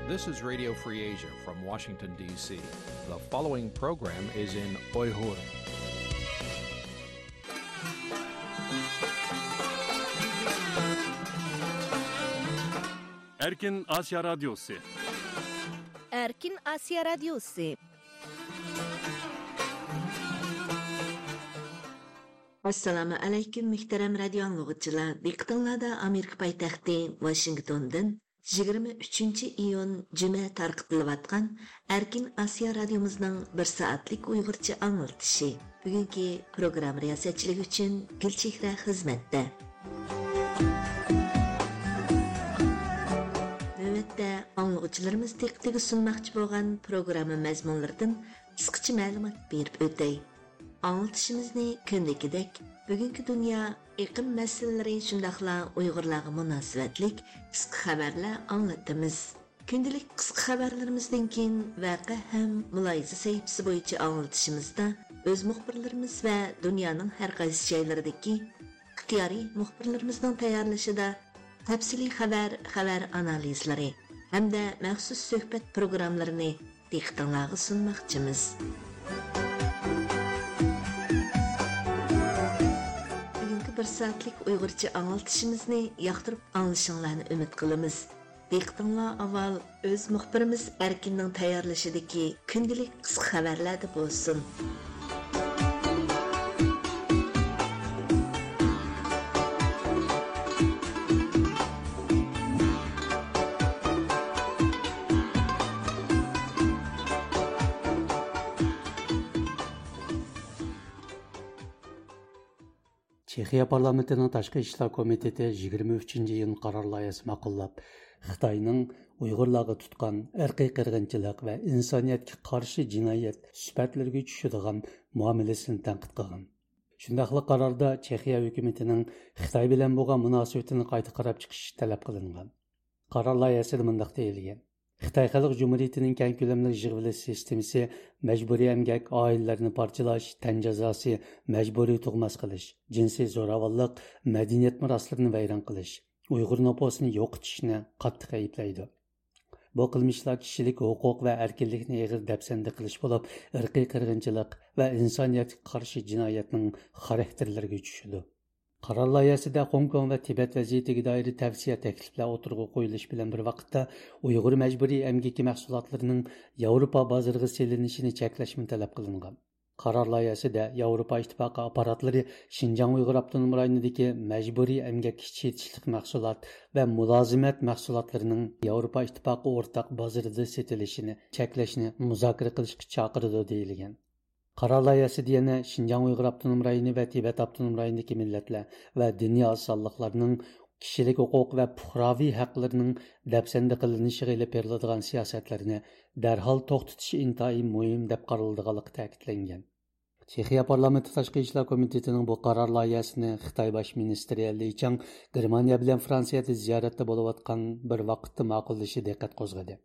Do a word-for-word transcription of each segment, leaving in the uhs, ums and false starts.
This is Radio Free Asia from Washington, D C. The following program is in Uyghur. Erkin Asiya Radyosu. Erkin Asiya Radyosu. ئەسسالامۇ ئەلەيكۇم، مۆھتەرەم رادىيو ئاڭلىغۇچىلار. دىققىتىڭلاردا ئامېرىكا پايتەختى ۋاشىنگتوندىن يىگىرمە ئۈچىنچى ئىيۇن جۈمە تارقىتىلىۋاتقان ئەركىن ئاسىيا رادىيومىزنىڭ بىر سائەتلىك ئۇيغۇرچە ئاڭلىتىشى. بۈگۈنكى پروگرامما رىياسەتچىلىكى ئۈچۈن گۈلچېھرە خىزمەتتە. نۆۋەتتە ئاڭلىغۇچىلىرىمىز دىققىتىگە سۇنماقچى بولغان پروگرامما مەزمۇنلىرىدىن قىسقىچە مەلۇمات بېرىپ ئۆتەي. ئاڭلىتىشىمىزنى كۈندىكىدەك بۈگۈنكى دۇنيا ئېقىم مەسىلىلىرى شۇنداقلا ئۇيغۇرلارغا مۇناسىۋەتلىك قىسقا خەۋەرلەر ئاڭلىتىمىز. كۈندىلىك قىسقا خەۋەرلىرىمىزدىن كېيىن ۋەقە ھەم مۇلاھىزە سەھىپىسى بويىچە ئاڭلىتىشىمىزدا ئۆز مۇخبىرلىرىمىز ۋە دۇنيانىڭ ھەر قايسى جايلىرىدىكى ئىختىيارىي مۇخبىرلىرىمىزنىڭ تەييارلىشىدا تەپسىلىي خەۋەر، خەۋەر ئانالىزلىرى ھەمدە مەخسۇس سۆھبەت پروگراممىلىرىنى دىققىتىڭلارغا سۇنماقچىمىز. بۈگۈنكى بىر سائەتلىك ئۇيغۇرچە ئاڭلىتىشىمىزنى ياقتۇرۇپ ئاڭلىشىڭلارنى ئۈمىد قىلىمىز. دىققىتىڭلار ئاۋۋال ئۆز مۇخبىرىمىز ئەركىننىڭ تەييارلىشىدىكى كۈندىلىك قىسقا خەۋەرلەردە بولسۇن. چېخىيە پارلامېنتىنىڭ تاشقى ئىشلار كومىتېتى يىگىرمە ئۈچىنچى ئىيۇن قارار لايىھەسى ماقۇللاپ، خىتاينىڭ ئۇيغۇرلارغا تۇتقان ئىرقىي قىرغىنچىلىق ۋە ئىنسانىيەتكە قارشى جىنايەت سۈپەتلىرىگە چۈشىدىغان مۇئامىلىسىنى تەنقىد قىلغان. شۇنداقلا قاراردا چېخىيە ھۆكۈمىتىنىڭ خىتاي بىلەن بولغان مۇناسىۋىتىنى قايتا قاراپ چىقىش تەلەپ قىلىنغان. قارار لايىھەسىدە مۇنداق دېيىلگەن: خىتاي خەلق جۇمھۇرىيىتىنىڭ كەڭ كۆلەملىك يىغىۋېلىش سىستېمىسى مەجبۇرىي ئەمگەك، ئائىلىلەرنى پارچىلاش، تەن جازاسى، مەجبۇرىي تۇغماس قىلىش، جىنسىي زوراۋانلىق، مەدەنىيەت مىراسلىرىنى ۋەيران قىلىش، ئۇيغۇر نوپۇسىنى يوقىتىشنى قاتتىق ئەيىبلەيدۇ. بۇ قىلمىشلار كىشىلىك ھوقۇق ۋە ئەركىنلىكنى ئېغىر دەپسەندە قىلىش بولۇپ، ئىرقىي قىرغىنچىلىق ۋە ئىنسانىيەتكە قارشى جىنايەتنىڭ خاراكتېرلىرىگە چۈشىدۇ. قارار لايىھەسىدە خوڭكوڭ ۋە تىبەت ۋەزىيىتىگە دائىر تەۋسىيە تەكلىپلەر ئوتتۇرىغا قويۇلۇشى بىلەن بىر ۋاقىتتا، ئۇيغۇر مەجبۇرىي ئەمگىكى مەھسۇلاتلىرىنىڭ ياۋروپا بازىرىغا سېلىنىشىنى چەكلەشمۇ تەلەپ قىلىنغان. قارار لايىھەسىدە ياۋروپا ئىتتىپاقى ئاپپاراتلىرى شىنجاڭ ئۇيغۇر ئاپتونوم رايونىدىكى مەجبۇرىي ئەمگەككە چېتىشلىق مەھسۇلات ۋە مۇلازىمەت مەھسۇلاتلىرىنىڭ ياۋروپا ئىتتىپاقى ئورتاق بازىرىدا سېتىلىشىنى چەكلەشنى مۇزاكىرە قىلىشقا چاقىرىدۇ، دېيىلگەن. قارار لايىھەسىدە يەنە شىنجاڭ ئۇيغۇر ئاپتونوم رايونى ۋە تىبەت ئاپتونوم رايونىدىكى مىللەتلەر ۋە دىنىي ئاز سانلىقلارنىڭ كىشىلىك ھوقۇق ۋە پۇقراۋى ھەقلىرىنىڭ دەپسەندە قىلىنىشىغا ئېلىپ بېرىلىدىغان سىياسەتلەرنى دەرھال توختىتىش ئىنتايىن مۇھىم دەپ قارىلىدىغانلىقى تەكىتلەنگەن. چېخىيە پارلامېنتى تاشقى ئىشلار كومىتېتىنىڭ بۇ قارار لايىھەسىنى خىتاي باش مىنىستىرى لى چاڭ گېرمانىيە بىلەن فرانسىيەدە زىيارەتتە بولۇۋاتقان بىر ۋاقىتتا ماقۇللىشى دىققەت قوزغىدى.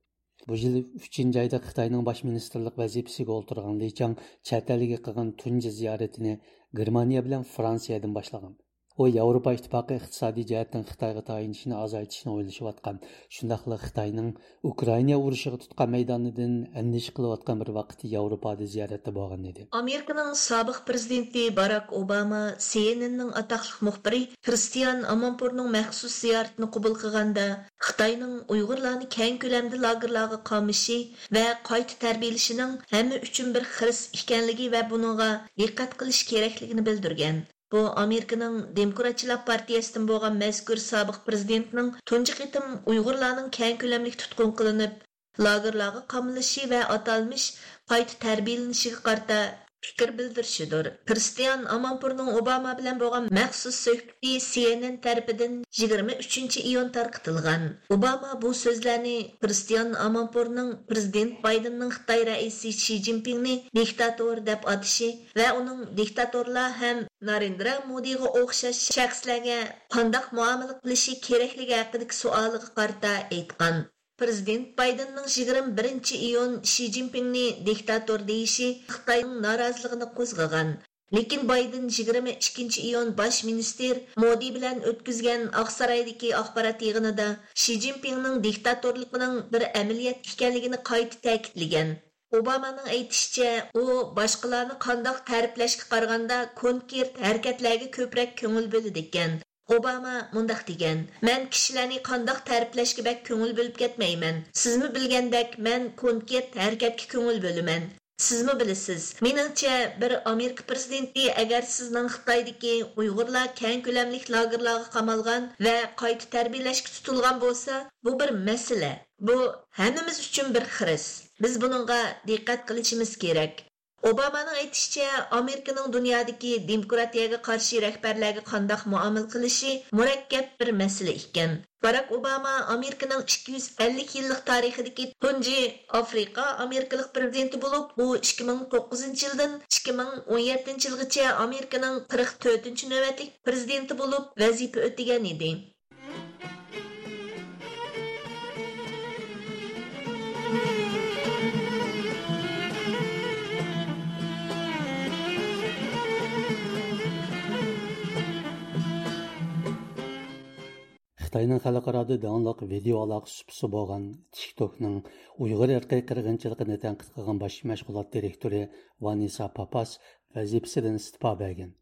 بۇ يىل ئۈچىنچى ئايدا خىتاينىڭ باش مىنىستىرلىق ۋەزىپىسىگە ئولتۇرغان لى چاڭ چەت ئەلگە قىلغان تۇنجى زىيارىتىنى گېرمانىيە بىلەن فرانسىيەدىن باشلىغان. ئۇ ياۋروپا ئىتتىپاقى ئىقتىسادىي جەھەتتىن خىتايغا تايىنىشنى ئازايتىشنى ئويلىشىۋاتقان، شۇنداقلا خىتاينىڭ ئۇكرائىنا ئۇرۇشىغا تۇتقان مەيدانىدىن ئەندىشە قىلىۋاتقان بىر ۋاقىتتا ياۋروپادا زىيارەتتە بولغان ئىدى. ئامېرىكىنىڭ سابىق پرېزىدېنتى باراك ئوباما سى ئېن ئېننىڭ ئاتاقلىق مۇخبىرى كرىستىيان ئامانپۇرنىڭ مەخسۇس زىيارىتىنى قوبۇل قىلغاندا، خىتاينىڭ ئۇيغۇرلارنى كەڭ كۆلەمدە لاگېرلارغا قامىشى ۋە قايتا تەربىيەلىشىنىڭ ھەممە ئۈچۈن بىر خىرىس ئىكەنلىكى ۋە بۇنىڭغا دىققەت قىلىش كېرەكلىكىنى بىلدۈرگەن. بۇ ئامېرىكىنىڭ دېموكراتچىلار پارتىيەسىدىن بولغان مەزكۇر سابىق پرېزىدېنتنىڭ تۇنجى قېتىم ئۇيغۇرلارنىڭ كەڭ كۆلەملىك تۇتقۇن قىلىنىپ، لاگېرلارغا قامىلىشى ۋە ئاتالمىش قايتا تەربىيەلىنىشىگە قارىتا پىكىر بىلدۈرۈشىدۇر. كرىستىيان ئامانپۇرنىڭ ئوباما بىلەن بولغان مەخسۇس سۆھبىتى سى ئېن ئېن تەرىپىدىن يىگىرمە ئۈچىنچى ئىيۇن تارقىتىلغان. ئوباما بۇ سۆزلەرنى كرىستىيان ئامانپۇرنىڭ پرېزىدېنت بايدېننىڭ خىتاي رەئىسى شى جىنپىڭنى دىكتاتور دەپ ئاتىشى ۋە ئۇنىڭ دىكتاتورلار ھەم نارېندرا مودىغا ئوخشاش شەخسلەرگە قانداق مۇئامىلە قىلىشى كېرەكلىكى ھەققىدىكى سوئالىغا قارىتا ئېيتقان. پرېزىدېنت بايدېننىڭ يىگىرمە بىرىنچى ئىيۇن شى جىنپىڭنى دىكتاتور دېيىشى خىتاينىڭ نارازىلىقىنى قوزغىغان. لېكىن بايدېن يىگىرمە ئىككىنچى ئىيۇن باش مىنىستىر مودى بىلەن ئۆتكۈزگەن ئاقسارايدىكى ئاخبارات يىغىنىدا شى جىنپىڭنىڭ دىكتاتورلۇقىنىڭ بىر ئەمەلىيەت ئىكەنلىكىنى قايتا تەكىتلىگەن. ئوبامانىڭ ئېيتىشىچە، ئۇ باشقىلارنى قانداق تەرىپلەشكە قارىغاندا كونكرېت ھەرىكەتلەرگە كۆپرەك كۆڭۈل بۆلىدىكەن. ئوباما مۇنداق دېگەن: «مەن كىشىلەرنى قانداق تەرىپلەشكە بەك كۆڭۈل بۆلۈپ كەتمەيمەن. سىزمۇ بىلگەندەك، مەن كونكرېت ھەرىكەتكە كۆڭۈل بۆلىمەن.» سىزمۇ بىلىسىز، مېنىڭچە، بىر ئامېرىكا پىرېزىدېنتى ئەگەر سىزنىڭ خىتايدىكى ئۇيغۇرلار كەڭ كۆلەملىك لاگېرلارغا قامالغان ۋە قايتا تەربىيەلەشكە تۇتۇلغان بولسا، بۇ بىر مەسىلە. بۇ ھەممىمىز ئۈچۈن بىر خىرىس. بىز بۇنىڭغا دىققەت قىلىشىمىز كېرەك. ئوبامانىڭ ئېيتىشىچە، ئامېرىكىنىڭ دۇنيادىكى دېموكراتىيەگە قارشى رەھبەرلەرگە قانداق مۇئامىلە قىلىشى مۇرەككەپ بىر مەسىلە ئىكەن. باراك ئوباما ئامېرىكىنىڭ ئىككى يۈز ئەللىك يىللىق تارىخىدىكى تۇنجى ئافرىقا ئامېرىكىلىق پىرېزىدېنتى بولۇپ، ئۇ ئىككى مىڭ توققۇزىنچى يىلدىن ئىككى مىڭ ئون يەتتىنچى يىلغىچە ئامېرىكىنىڭ قىرىق تۆتىنچى نۆۋەتلىك پىرېزىدېنتى بولۇپ ۋەزىپە ئۆتىگەن ئىدى. خىتاينىڭ خەلقئارادا داڭلىق ۋىدېئو ئالاقە سۇپىسى بولغان تىكتوكنىڭ ئۇيغۇر ئىرقىي قىرغىنچىلىقىنى تەنقىد قىلغان باش مەشغۇلات دىرېكتورى ۋانېسسا پاپاس ۋەزىپىسىدىن ئىستېپا بەرگەن.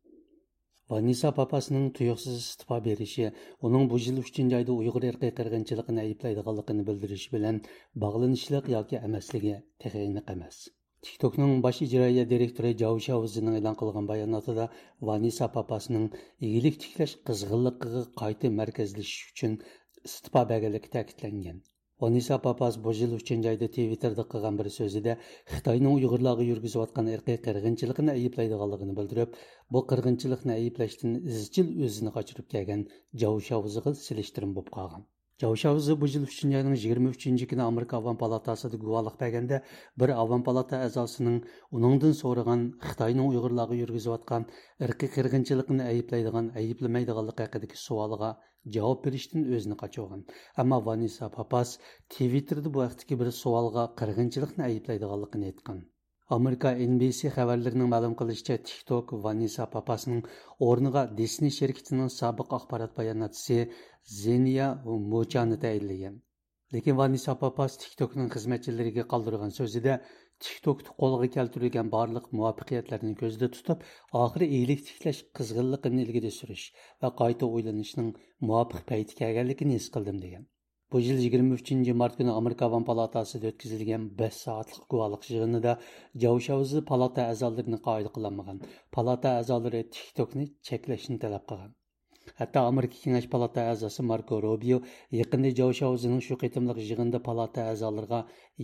ۋانېسسا پاپاسنىڭ تۇيۇقسىز ئىستېپا بېرىشى ئۇنىڭ بۇ يىل ئۈچىنچى ئايدا ئۇيغۇر ئىرقىي قىرغىنچىلىقىنى ئەيىبلەيدىغانلىقىنى بىلدۈرۈشى بىلەن باغلىنىشلىق ياكى ئەمەسلىكى تېخى ئېنىق ئەمەس. تىكتوكنىڭ باش ئىجرائىيە دىرېكتورى جاۋ شياۋزېنىڭ ئېلان قىلغان باياناتىدا ۋانېسسا پاپاسنىڭ ئىگىلىك تىكلەش قىزغىنلىقىغا قايتا مەركەزلىشىش ئۈچۈن ئىستېپا بەرگەنلىكى تەكىتلەنگەن. ۋانېسسا پاپاس بۇ يىل ئۈچىنچى ئايدا تىۋىتتېردا قىلغان بىر سۆزىدە خىتاينىڭ ئۇيغۇرلارغا يۈرگۈزۈۋاتقان ئىرقىي قىرغىنچىلىقىنى ئەيىبلەيدىغانلىقىنى بىلدۈرۈپ، بۇ قىرغىنچىلىقنى ئەيىبلەشتىن ئىزچىل ئۆزىنى قاچۇرۇپ كەلگەن جاۋ شياۋزېغا سېلىشتۇرما بولۇپ قالغان. جاۋ شياۋزې بۇ يىل ئۈچىنچى ئاينىڭ يىگىرمە ئۈچىنچى كۈنى ئامېرىكا ئاۋام پالاتاسىدا گۇۋاھلىق بەرگەندە، بىر ئاۋام پالاتا ئەزاسىنىڭ ئۇنىڭدىن سورىغان خىتاينىڭ ئۇيغۇرلارغا يۈرگۈزۈۋاتقان ئىرقىي قىرغىنچىلىقىنى ئەيىبلەيدىغان، ئەيىبلىمەيدىغانلىقى ھەققىدىكى سوئالىغا جاۋاب بېرىشتىن ئۆزىنى قاچۇرغان. ئەمما ۋانېسسا پاپاس تىۋىتتېردا بۇ ھەقتىكى بىر سوئالغا قىرغىنچىلىقنى ئەيىبلەيدىغانلىقىنى ئېيتقان. ئامېرىكا ئېن بى سى خەۋەرلىرىنىڭ مەلۇم قىلىشىچە، تىكتوك ۋانېسسا پاپاسنىڭ ئورنىغا دىسنېي شىركىتىنىڭ سابىق ئاخبارات باياناتچىسى زېنيا موچانى تەيىنلىگەن. لېكىن ۋانېسسا پاپاس تىكتوكنىڭ خىزمەتچىلىرىگە قالدۇرغان سۆزىدە، تىكتوكتا قولغا كەلتۈرۈلگەن بارلىق مۇۋەپپەقىيەتلەرنى كۆزدە تۇتۇپ، ئاخىرى ئىگىلىك تىكلەش قىزغىنلىقىنى ئىلگىرى سۈرۈش ۋە قايتا ئويلىنىشنىڭ مۇۋاپىق پەيتكە كەلگەنلىكىنى ھېس قىلدىم، دېگەن. بۇ يىل يىگىرمە ئۈچىنچى مارت كۈنى ئامېرىكا ئاۋام پالاتاسىدا ئۆتكۈزۈلگەن بەش سائەتلىك گۇۋاھلىق يىغىنىدا جاۋ شياۋزې پالاتا ئەزالىرىنى قايىل قىلالمىغان، پالاتا ئەزالىرى تىكتوكنى چەكلەشنى تەلەپ قىلغان. ھەتتا ئامېرىكا كېڭەش پالاتا ئەزاسى ماركو روبىيو يېقىندا جاۋ شياۋزېنىڭ شۇ قېتىملىق يىغىندا پالاتا ئەزالىرىغا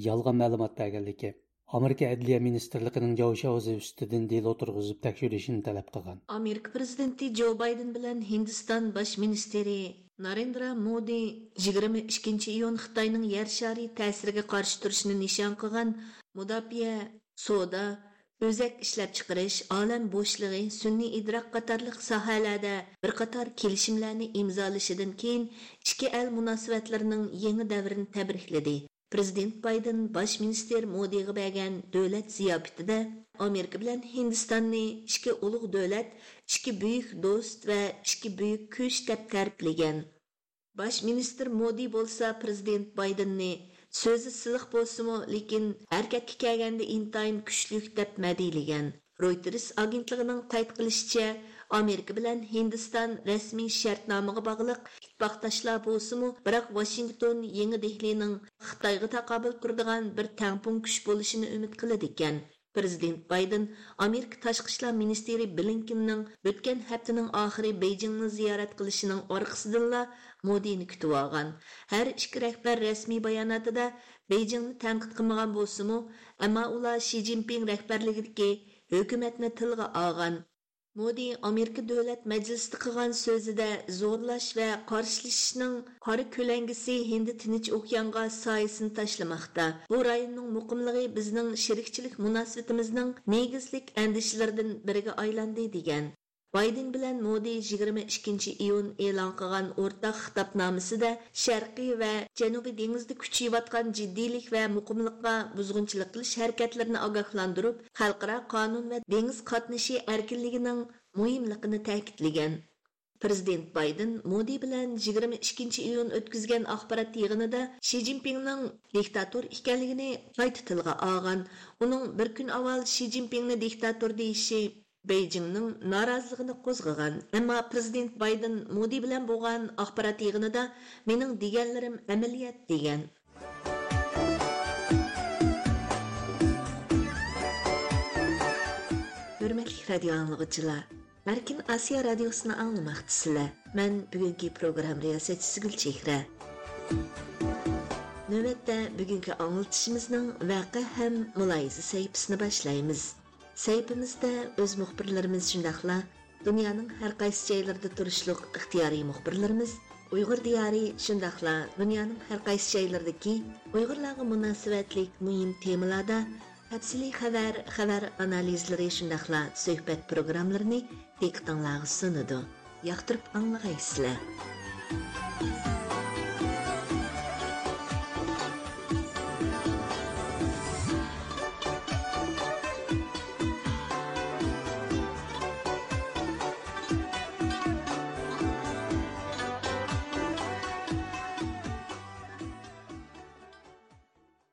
يالغان مەلۇمات بەرگەنلىكى، ئامېرىكا ئەدلىيە مىنىستىرلىقىنىڭ جاۋ شياۋزې ئۈستىدىن دېلو تۇرغۇزۇپ تەكشۈرۈشىنى تەلەپ قىلغان. ئامېرىكا پىرېزىدېنتى جو بايدېن بىلەن ھىندىستان باش مىنىستىرى نارېندرا مودى يىگىرمە ئىككىنچى ئىيۇن خىتاينىڭ يەر شارى تەسىرىگە قارشى تۇرۇشنى نىشان قىلغان مۇداپىئە، سودا، ئۆزەك ئىشلەپچىقىرىش، ئالەم بوشلۇقى، سۈنئىي ئىدراك قاتارلىق ساھەلەردە بىر قاتار كېلىشىملەرنى ئىمزالىشىدىن كېيىن، ئىككى ئەل مۇناسىۋەتلىرىنىڭ يېڭى دەۋرىنى تەبرىكلىدى. پىرېزىدېنت بايدېن باش مىنىستىر مودىغا بەرگەن دۆلەت زىياپىتىدە ئامېرىكا بىلەن ھىندىستاننى ئىككى ئۇلۇغ دۆلەت، ئىككى بۈيۈك دوست ۋە ئىككى بۈيۈك كۈچ دەپ تەرىپلىگەن. باش مىنىستىر مودى بولسا پىرېزىدېنت بايدېننى سۆزى سىلىق بولسىمۇ، لېكىن ھەرىكەتكە كەلگەندە ئىنتايىن كۈچلۈك دەپ مەدھىيلىگەن. رويتېرس ئاگېنتلىقىنىڭ قەيت قىلىشىچە، ئامېرىكا بىلەن ھىندىستان رەسمىي شەرتنامىغا باغلىق ئىتتىپاقداشلار بولسىمۇ، بىراق ۋاشىنگتون يېڭى دېھلىنىڭ خىتايغا تاقابىل تۇرىدىغان بىر تەڭپۇڭ كۈچ بولۇشىنى ئۈمىد قىلىدىكەن. پىرېزىدېنت بايدېن ئامېرىكا تاشقى ئىشلار مىنىستىرى بلىنكېننىڭ ئۆتكەن ھەپتىنىڭ ئاخىرى بېيجىڭنى زىيارەت قىلىشىنىڭ ئارقىسىدىنلا مودىنى كۈتۈۋالغان. ھەر ئىككى رەھبەر رەسمىي باياناتىدا بېيجىڭنى تەنقىد قىلمىغان بولسىمۇ، ئەمما ئۇلار شى جىنپىڭ رەھبەرلىكىدىكى ھۆكۈمەتنى تىلغا ئالغان. مودى ئامېرىكا دۆلەت مەجلىسىدە قىلغان سۆزىدە زورلاش ۋە قارشىلىشىشنىڭ قارا كۆلەڭگىسى ھىندى تىنچ ئوكيانغا سايىسىنى تاشلىماقتا. بۇ رايوننىڭ مۇقىملىقى بىزنىڭ شېرىكچىلىك مۇناسىۋىتىمىزنىڭ نېگىزلىك ئەندىشىلىرىدىن بىرىگە ئايلاندى، دېگەن. بايدېن بىلەن مودى يىگىرمە ئىككىنچى ئىيۇن ئېلان قىلغان ئورتاق خىتابنامىسىدە شەرقىي ۋە جەنۇبىي دېڭىزدا كۈچىيىۋاتقان جىددىيلىك ۋە مۇقىملىققا بۇزغۇنچىلىق قىلىش ھەرىكەتلىرىنى ئاگاھلاندۇرۇپ، خەلقئارا قانۇن ۋە دېڭىز قاتنىشى ئەركىنلىكىنىڭ مۇھىملىقىنى تەكىتلىگەن. پىرېزىدېنت بايدېن مودى بىلەن يىگىرمە ئىككىنچى ئىيۇن ئۆتكۈزگەن ئاخبارات يىغىنىدا شى جىنپىڭنىڭ دىكتاتور ئىكەنلىكىنى قايتا تىلغا ئالغان. ئۇنىڭ بىر كۈن ئاۋۋال شى جىنپىڭنى دىكتاتور دېيىشى بېيجىڭنىڭ نارازىلىقىنى قوزغىغان. ئەمما پىرېزىدېنت بايدېن مودى بىلەن بولغان ئاخبارات يىغىنىدا مېنىڭ دېگەنلىرىم ئەمەلىيەت دېگەن. ھۆرمەتلىك رادىيو ئاڭلىغۇچىلار، ئەركىن ئاسىيا رادىيوسىنى ئاڭلىماقتىسىلەر. مەن بۈگۈنكى پروگرامما رىياسەتچىسى گۈلچېھرە. نۆۋەتتە بۈگۈنكى ئاڭلىتىشىمىزنىڭ ۋەقە ھەم مۇلاھىزە سەھىپىسىنى باشلايمىز. سەھىپىمىزدە ئۆز مۇخبىرلىرىمىز شۇنداقلا دۇنيانىڭ ھەر قايسى جايلىرىدا تۇرۇشلۇق ئىختىيارىي مۇخبىرلىرىمىز ئۇيغۇر دىيارى شۇنداقلا دۇنيانىڭ ھەر قايسى جايلىرىدىكى ئۇيغۇرلارغا مۇناسىۋەتلىك مۇھىم تېمىلاردا تەپسىلىي خەۋەر، خەۋەر ئانالىزلىرى شۇنداقلا سۆھبەت پروگراممىلىرىنى دىققىتىڭلارغا سۇنىدۇ. ياقتۇرۇپ ئاڭلىغايسىلەر.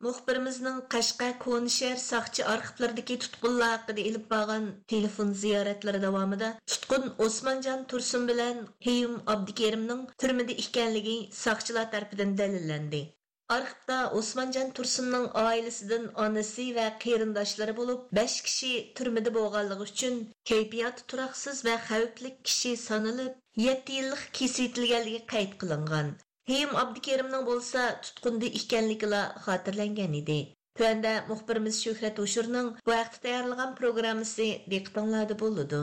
مۇخبىرىمىزنىڭ قەشقەر كونىشەھەر ساقچى ئارخىپلىرىدىكى تۇتقۇنلار ھەققىدە ئېلىپ بارغان تېلېفون زىيارەتلىرى داۋامىدا تۇتقۇن ئوسمانجان تۇرسۇن بىلەن قېيۇم ئابدۇكېرىمنىڭ تۈرمىدە ئىكەنلىكى ساقچىلار تەرىپىدىن دەلىللەندى. ئارخىپتا ئوسمانجان تۇرسۇننىڭ ئائىلىسىدىن ئانىسى ۋە قېرىنداشلىرى بولۇپ بەش كىشى تۈرمىدە بولغانلىقى ئۈچۈن كەيپىياتى تۇراقسىز ۋە خەۋپلىك كىشى سانىلىپ، يەتتە يىللىق كېسىۋېتىلگەنلىكى قەيت قىلىنغان. قېيۇم ئابدۇكېرىمنىڭ بولسا تۇتقۇندا ئىكەنلىكىلا خاتىرىلەنگەن ئىدى. تۆۋەندە مۇخبىرىمىز شۆھرەت ھوشۇرنىڭ بۇ ھەقتە تەييارلىغان پروگراممىسى دىققىتىڭلاردا بولىدۇ.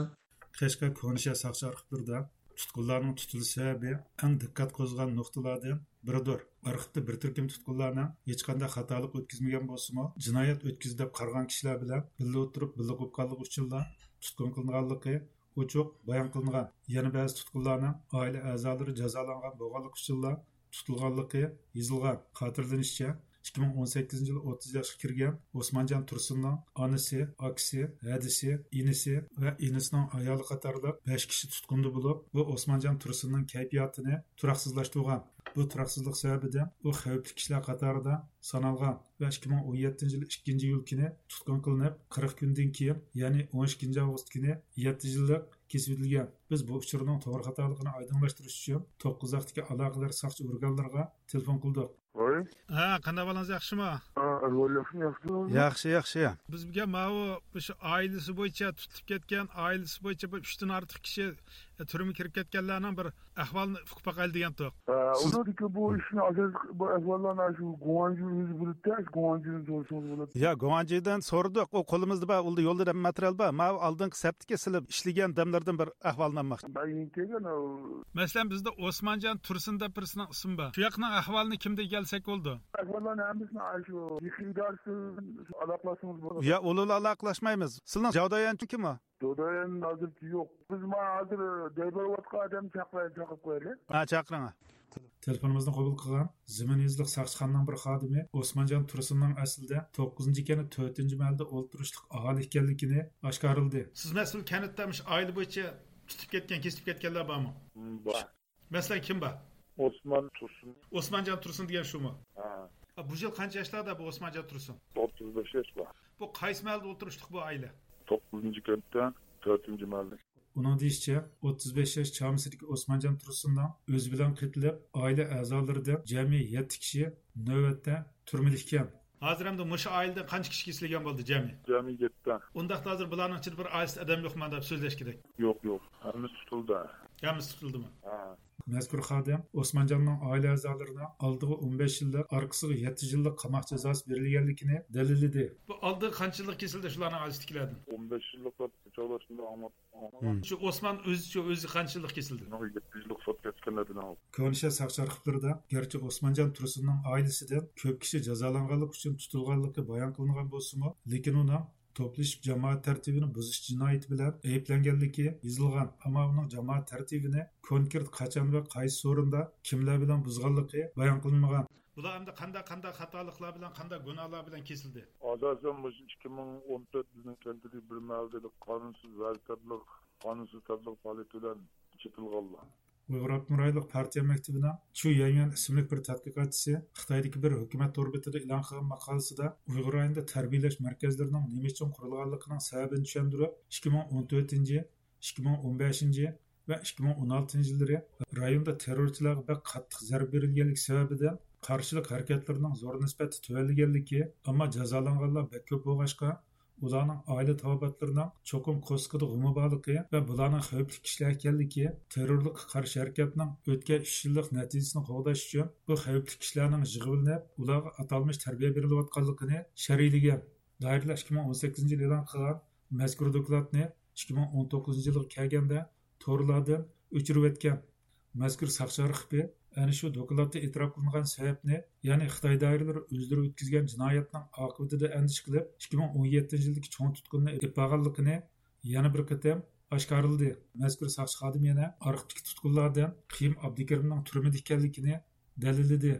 قەشقەر كونىشەھەر ساقچى ئارخىپلىرىدا تۇتقۇنلارنىڭ تۇتۇلۇش سەۋەبى ئەڭ دىققەت قوزغىغان نۇقتىلاردىن بىرىدۇر. ئارخىپتا بىر تۈركۈم تۇتقۇنلارنىڭ ھېچقانداق خاتالىق ئۆتكۈزمىگەن بولسىمۇ، جىنايەت ئۆتكۈزدى دەپ قارىغان كىشىلەر بىلەن بىللە ئولتۇرۇپ، بىللە قوپقانلىقى ئۈچۈنلا تۇتقۇن قىلىنغانلىقى ئوچۇق بايان قىلىنغان. يەنە بەزى تۇتقۇنلارنىڭ ئائىلە ئەزالىرى جازالانغان بولغانلىقى ئۈچۈنلا تۇتۇلغانلىقى يېزىلغان. خاتىرىلىنىشىچە، ئىككى مىڭ ئون سەككىزىنچى يىلى ئوتتۇز ياشقا كىرگەن ئوسمانجان تۇرسۇننىڭ ئانىسى، ئاكىسى، ھەدىسى، ئىنىسى ۋە ئىنىسىنىڭ ئايالى قاتارلىق بەش كىشى تۇتقۇندا بولۇپ، بۇ ئوسمانجان تۇرسۇننىڭ كەيپىياتىنى تۇراقسىزلاشتۇرغان. بۇ تۇراقسىزلىق سەۋەبىدىن ئۇ خەۋپلىك كىشىلەر قاتارىدا سانالغان ۋە ئىككى مىڭ ئون يەتتىنچى يىل ئىككىنچى ئىيۇل كۈنى تۇتقۇن قىلىنىپ، قىرىق كۈندىن كېيىن، يەنى ئون ئىككىنچى ئاۋغۇست كۈنى يەتتە يىللىق كېسىۋېتىلگەن. بىز بۇ ئۇچۇرنىڭ توغرا خاتالىقىنى ئايدىڭلاشتۇرۇش ئۈچۈن توققۇزاقتىكى ئالاقىدار ساقچى ئورگانلىرىغا تېلېفون قىلدۇق. ۋاي. ھە، قانداق ئەھۋالىڭىز، ياخشىمۇ؟ ھە، ئەھۋال ياخشىمۇ، ياخشىمۇ؟ ياخشى، ياخشى. بىز بۈگۈن ماۋۇ مۇشۇ ئائىلىسى بويىچە تۇتۇلۇپ كەتكەن، ئائىلىسى بويىچە بىر ئۈچتىن ئارتۇق كىشى، ئە، تۈرمىگە كىرىپ كەتكەنلەرنىڭ بىر ئەھۋالىنى ئۇقۇپ باقايلى دېگەنتۇق. ھە، سىز ئۇنىڭدىكى بۇ ئىشنى ئاساسلىق بۇ ئەھۋاللارنى شۇ گۇاڭجۇ ئۆزى بىلىدۇ، شۇ گۇاڭجۇدىن سورىسىڭىز بولىدۇ. يا، گۇاڭجىدىن سورىدۇق. ئۇ قولىمىزدا بار، ئۇلدا يولدا ماتېرىيال بار. ماۋۇ ئالدىنقى سەپتىكى سىلەر ئىشلىگەن دەملەردىن بىر ئەھۋالنى ئالماقچى. مەن يېڭى كەلگەن، ئۇ. مەسىلەن، بىزدە ئوسمانجان تۇرسۇن دەپ بىرسىنىڭ ئىسمى بار. شۇ ياقنىڭ ئەھۋالىنى كىمدىن ئەكەلسەك بولىدۇ؟ ئەھۋاللارنى ھەممىسىنى ئاشۇ يېقىن ئىدارىسىدىن ئالاقىلاشسىڭىز بولىدۇ. يا، ئۇلار ئالاقىلاشمايمىز. سىلىنىڭ جاۋدايەن كىم ئۇ؟ جاۋدايەن ھازىرچە يوق. بىز مانا ھازىر دەي بېرىۋاتقان ئادەمنى چاقىراي، چاقىرىپ قويايلى. ھە، چاقىرىڭ. تېلېفونىمىزنى قوبۇل قىلغان زېمىن يېزىلىق ساقچىخانىنىڭ بىر خادىمى ئوسمانجان تۇرسۇننىڭ ئەسلىدە توققۇزىنچى كەنت تۆتىنچى مەھەللىدە ئولتۇرۇشلۇق ئاھالە ئىكەنلىكىنى ئاشكارىلىدى. سىز مەسىلەن كەنتتە مۇشۇ ئائىلە بويىچە تۇتۇپ كەتكەن، كېسىپ كەتكەنلەر بارمۇ؟ بار. مەسىلەن، كىم بار؟ ئوسمان تۇرسۇن. ئوسمانجان تۇرسۇن دېگەن شۇمۇ؟ ھە. ئا، بۇ يىل قانچە ياشلاردا بۇ ئوسمانجان تۇرسۇن؟ ئوتتۇز بەش ياش بار. بۇ قايسى مەھەللىدە ئولتۇرۇشلۇق بۇ ئائىلە؟ توققۇزىنچى كەنتتە، تۆتىنچى مەھەللە. ئۇنىڭ دېيىشىچە، ئوتتۇز بەش ياش چامىسىدىكى ئوسمانجان تۇرسۇننىڭ ئۆزى بىلەن قېتىلىپ، ئائىلە ئەزالىرىدىن جەمئىي يەتتە كىشى نۆۋەتتە تۈرمىدە ئىكەن. ھازىر ئەمدى مۇشۇ ئائىلىدىن قانچە كىشى كېسىلگەن بولدى جەمئىي؟ جەمئىي يەتتە. ئۇنداقتا ھازىر بۇلارنىڭ ئىچىدە بىر ئائىلىسىدە ئادەم يوقما دەپ سۆزلەشكىدەك؟ يوق، يوق. ھەممىسى تۇتۇلدى. ھەممىسى تۇتۇلدىمۇ؟ ھە. مەزكۇر خادىم ئوسمانجاننىڭ ئائىلە ئەزالىرىنىڭ ئالدىغا ئون بەش يىللىق، ئارقىسىغا يەتتە يىللىق قاماق جازاسى بېرىلگەنلىكىنى دەلىللىدى. بۇ ئالدىغا قانچە يىللىق كېسىلدى شۇلارنىڭ ئائىلىسىدىكىلەردىن؟ ئون بەش يىللىق دەپ چاغلاشتىمدا ئاڭلاپ، ئاڭلاپ. شۇ ئوسمان ئۆزىچۇ، ئۆزى قانچە يىللىق كېسىلدى؟ يەتتە يىللىق سوت كەتكەنلەردىن ئاڭلاپ. كۆنىشە ساقچى ئارخىپلىرىدا گەرچە ئوسمانجان تۇرسۇننىڭ ئائىلىسىدىن كۆپ كىشى جازالانغانلىقى ئۈچۈن تۇتۇلغانلىقى بايان قىلىنغان بولسىمۇ، لېكىن ئۇنىڭ توپلىشىپ جامائەت تەرتىپىنى بۇزۇش جىنايىتى بىلەن ئەيىبلەنگەنلىكى يېزىلغان، ئەمما ئۇنىڭ جامائەت تەرتىپىنى كونكرېت قاچان ۋە قايسى ئورۇندا، كىملەر بىلەن بۇزغانلىقى بايان قىلىنمىغان. بۇلار ئەمدى قانداق، قانداق خاتالىقلار بىلەن، قانداق گۇناھلار بىلەن كېسىلدى؟ ئاساسەن مۇشۇ ئىككى مىڭ ئون تۆت بىزنىڭ كەنتىدىكى بىر مەھەللىدە قانۇنسىز ۋەزىپە، قانۇنسىز تەبلىغ پائالىيىتى بىلەن چېتىلغانلار. ئۇيغۇر ئاپتونوم رايونلۇق پارتىيە مەكتىپىنىڭ چۇ يەنيۈەن ئىسىملىك بىر تەتقىقاتچىسى خىتايدىكى بىر ھۆكۈمەت تور بېتىدا ئېلان قىلغان ماقالىسىدا، ئۇيغۇر رايونىدا تەربىيەلەش مەركەزلىرىنىڭ نېمە ئۈچۈن قۇرۇلغانلىقىنىڭ سەۋەبىنى چۈشەندۈرۈپ، ئىككى مىڭ ئون تۆتىنچى، ئىككى مىڭ ئون بەشىنچى ۋە ئىككى مىڭ ئون ئالتىنچى يىللىرى رايوندا تېررورچىلارغا بەك قاتتىق زەربە بېرىلگەنلىكى سەۋەبىدىن قارشىلىق ھەرىكەتلىرىنىڭ زور نىسبەتتە تۆۋەنلىگەنلىكى، ئەمما جازالانغانلار بەك كۆپ بولغاچقا، ئۇلارنىڭ ئائىلە تاۋابىئاتلىرىنىڭ چوقۇم كوسكىدا غۇمى بارلىقى ۋە بۇلارنىڭ خەۋپلىك كىشىلەر ئىكەنلىكى، تېررورلۇققا قارشى ھەرىكەتنىڭ ئۆتكەن ئۈچ يىللىق نەتىجىسىنى قوغداش ئۈچۈن بۇ خەۋپلىك كىشىلەرنىڭ يىغىۋېلىنىپ، ئۇلارغا ئاتالمىش تەربىيە بېرىلىۋاتقانلىقىنى شەرھلىگەن. دائىرىلەر ئىككى مىڭ ئون سەككىزىنچى يىل ئېلان قىلغان مەزكۇر دوكلاتنى ئىككى مىڭ ئون توققۇزىنچى يىلغا كەلگەندە توردىن ئۆچۈرۈۋەتكەن. مەزكۇر ساقچى ئارخىپى ئەنە شۇ دوكلاتتا ئېتىراپ قىلىنغان سەۋەبنى، يەنى خىتاي دائىرىلىرى ئۆزلىرى ئۆتكۈزگەن جىنايەتنىڭ ئاقىۋىتىدىن ئەندىشە قىلىپ، ئىككى مىڭ ئون يەتتىنچى يىلدىكى چوڭ تۇتقۇننى ئېلىپ بارغانلىقىنى يەنە بىر قېتىم ئاشكارىلىدى. مەزكۇر ساقچى خادىمى يەنە ئارخىپتىكى تۇتقۇنلاردىن قېيۇم ئابدۇكېرىمنىڭ تۈرمىدە ئىكەنلىكىنى دەلىللىدى.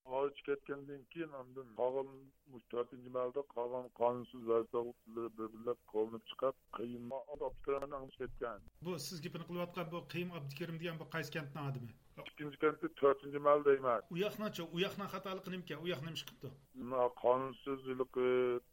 ئارچا كەتكەندىن كېيىن، ئاندىن قالغان مۇشۇ تۆتىنچى مەھەلدە قالغان قانۇنسىز ۋەزىپە ئوقۇتقۇچىلىرى بىر-بىرلەپ كوۋلىنىپ چىقىپ، قېيۇم ئابدۇكېرىمنى ئاڭلىشىپ كەتكەن. بۇ سىز گېپىنى قىلىۋاتقان بۇ قېيۇم ئابدۇكېرىم دېگەن بۇ قايسى كەنتنىڭ ئادىمى؟ ئىككىنچى كەنتى، تۆتىنچى مەھەللە دەيمەن. ئۇ ياقنىڭچۇ؟ ئۇ ياقنىڭ خاتالىقى نېمىكەن؟ ئۇ ياق نېمە ئىش قىپتۇ؟ مانا قانۇنسىز ھېلىقى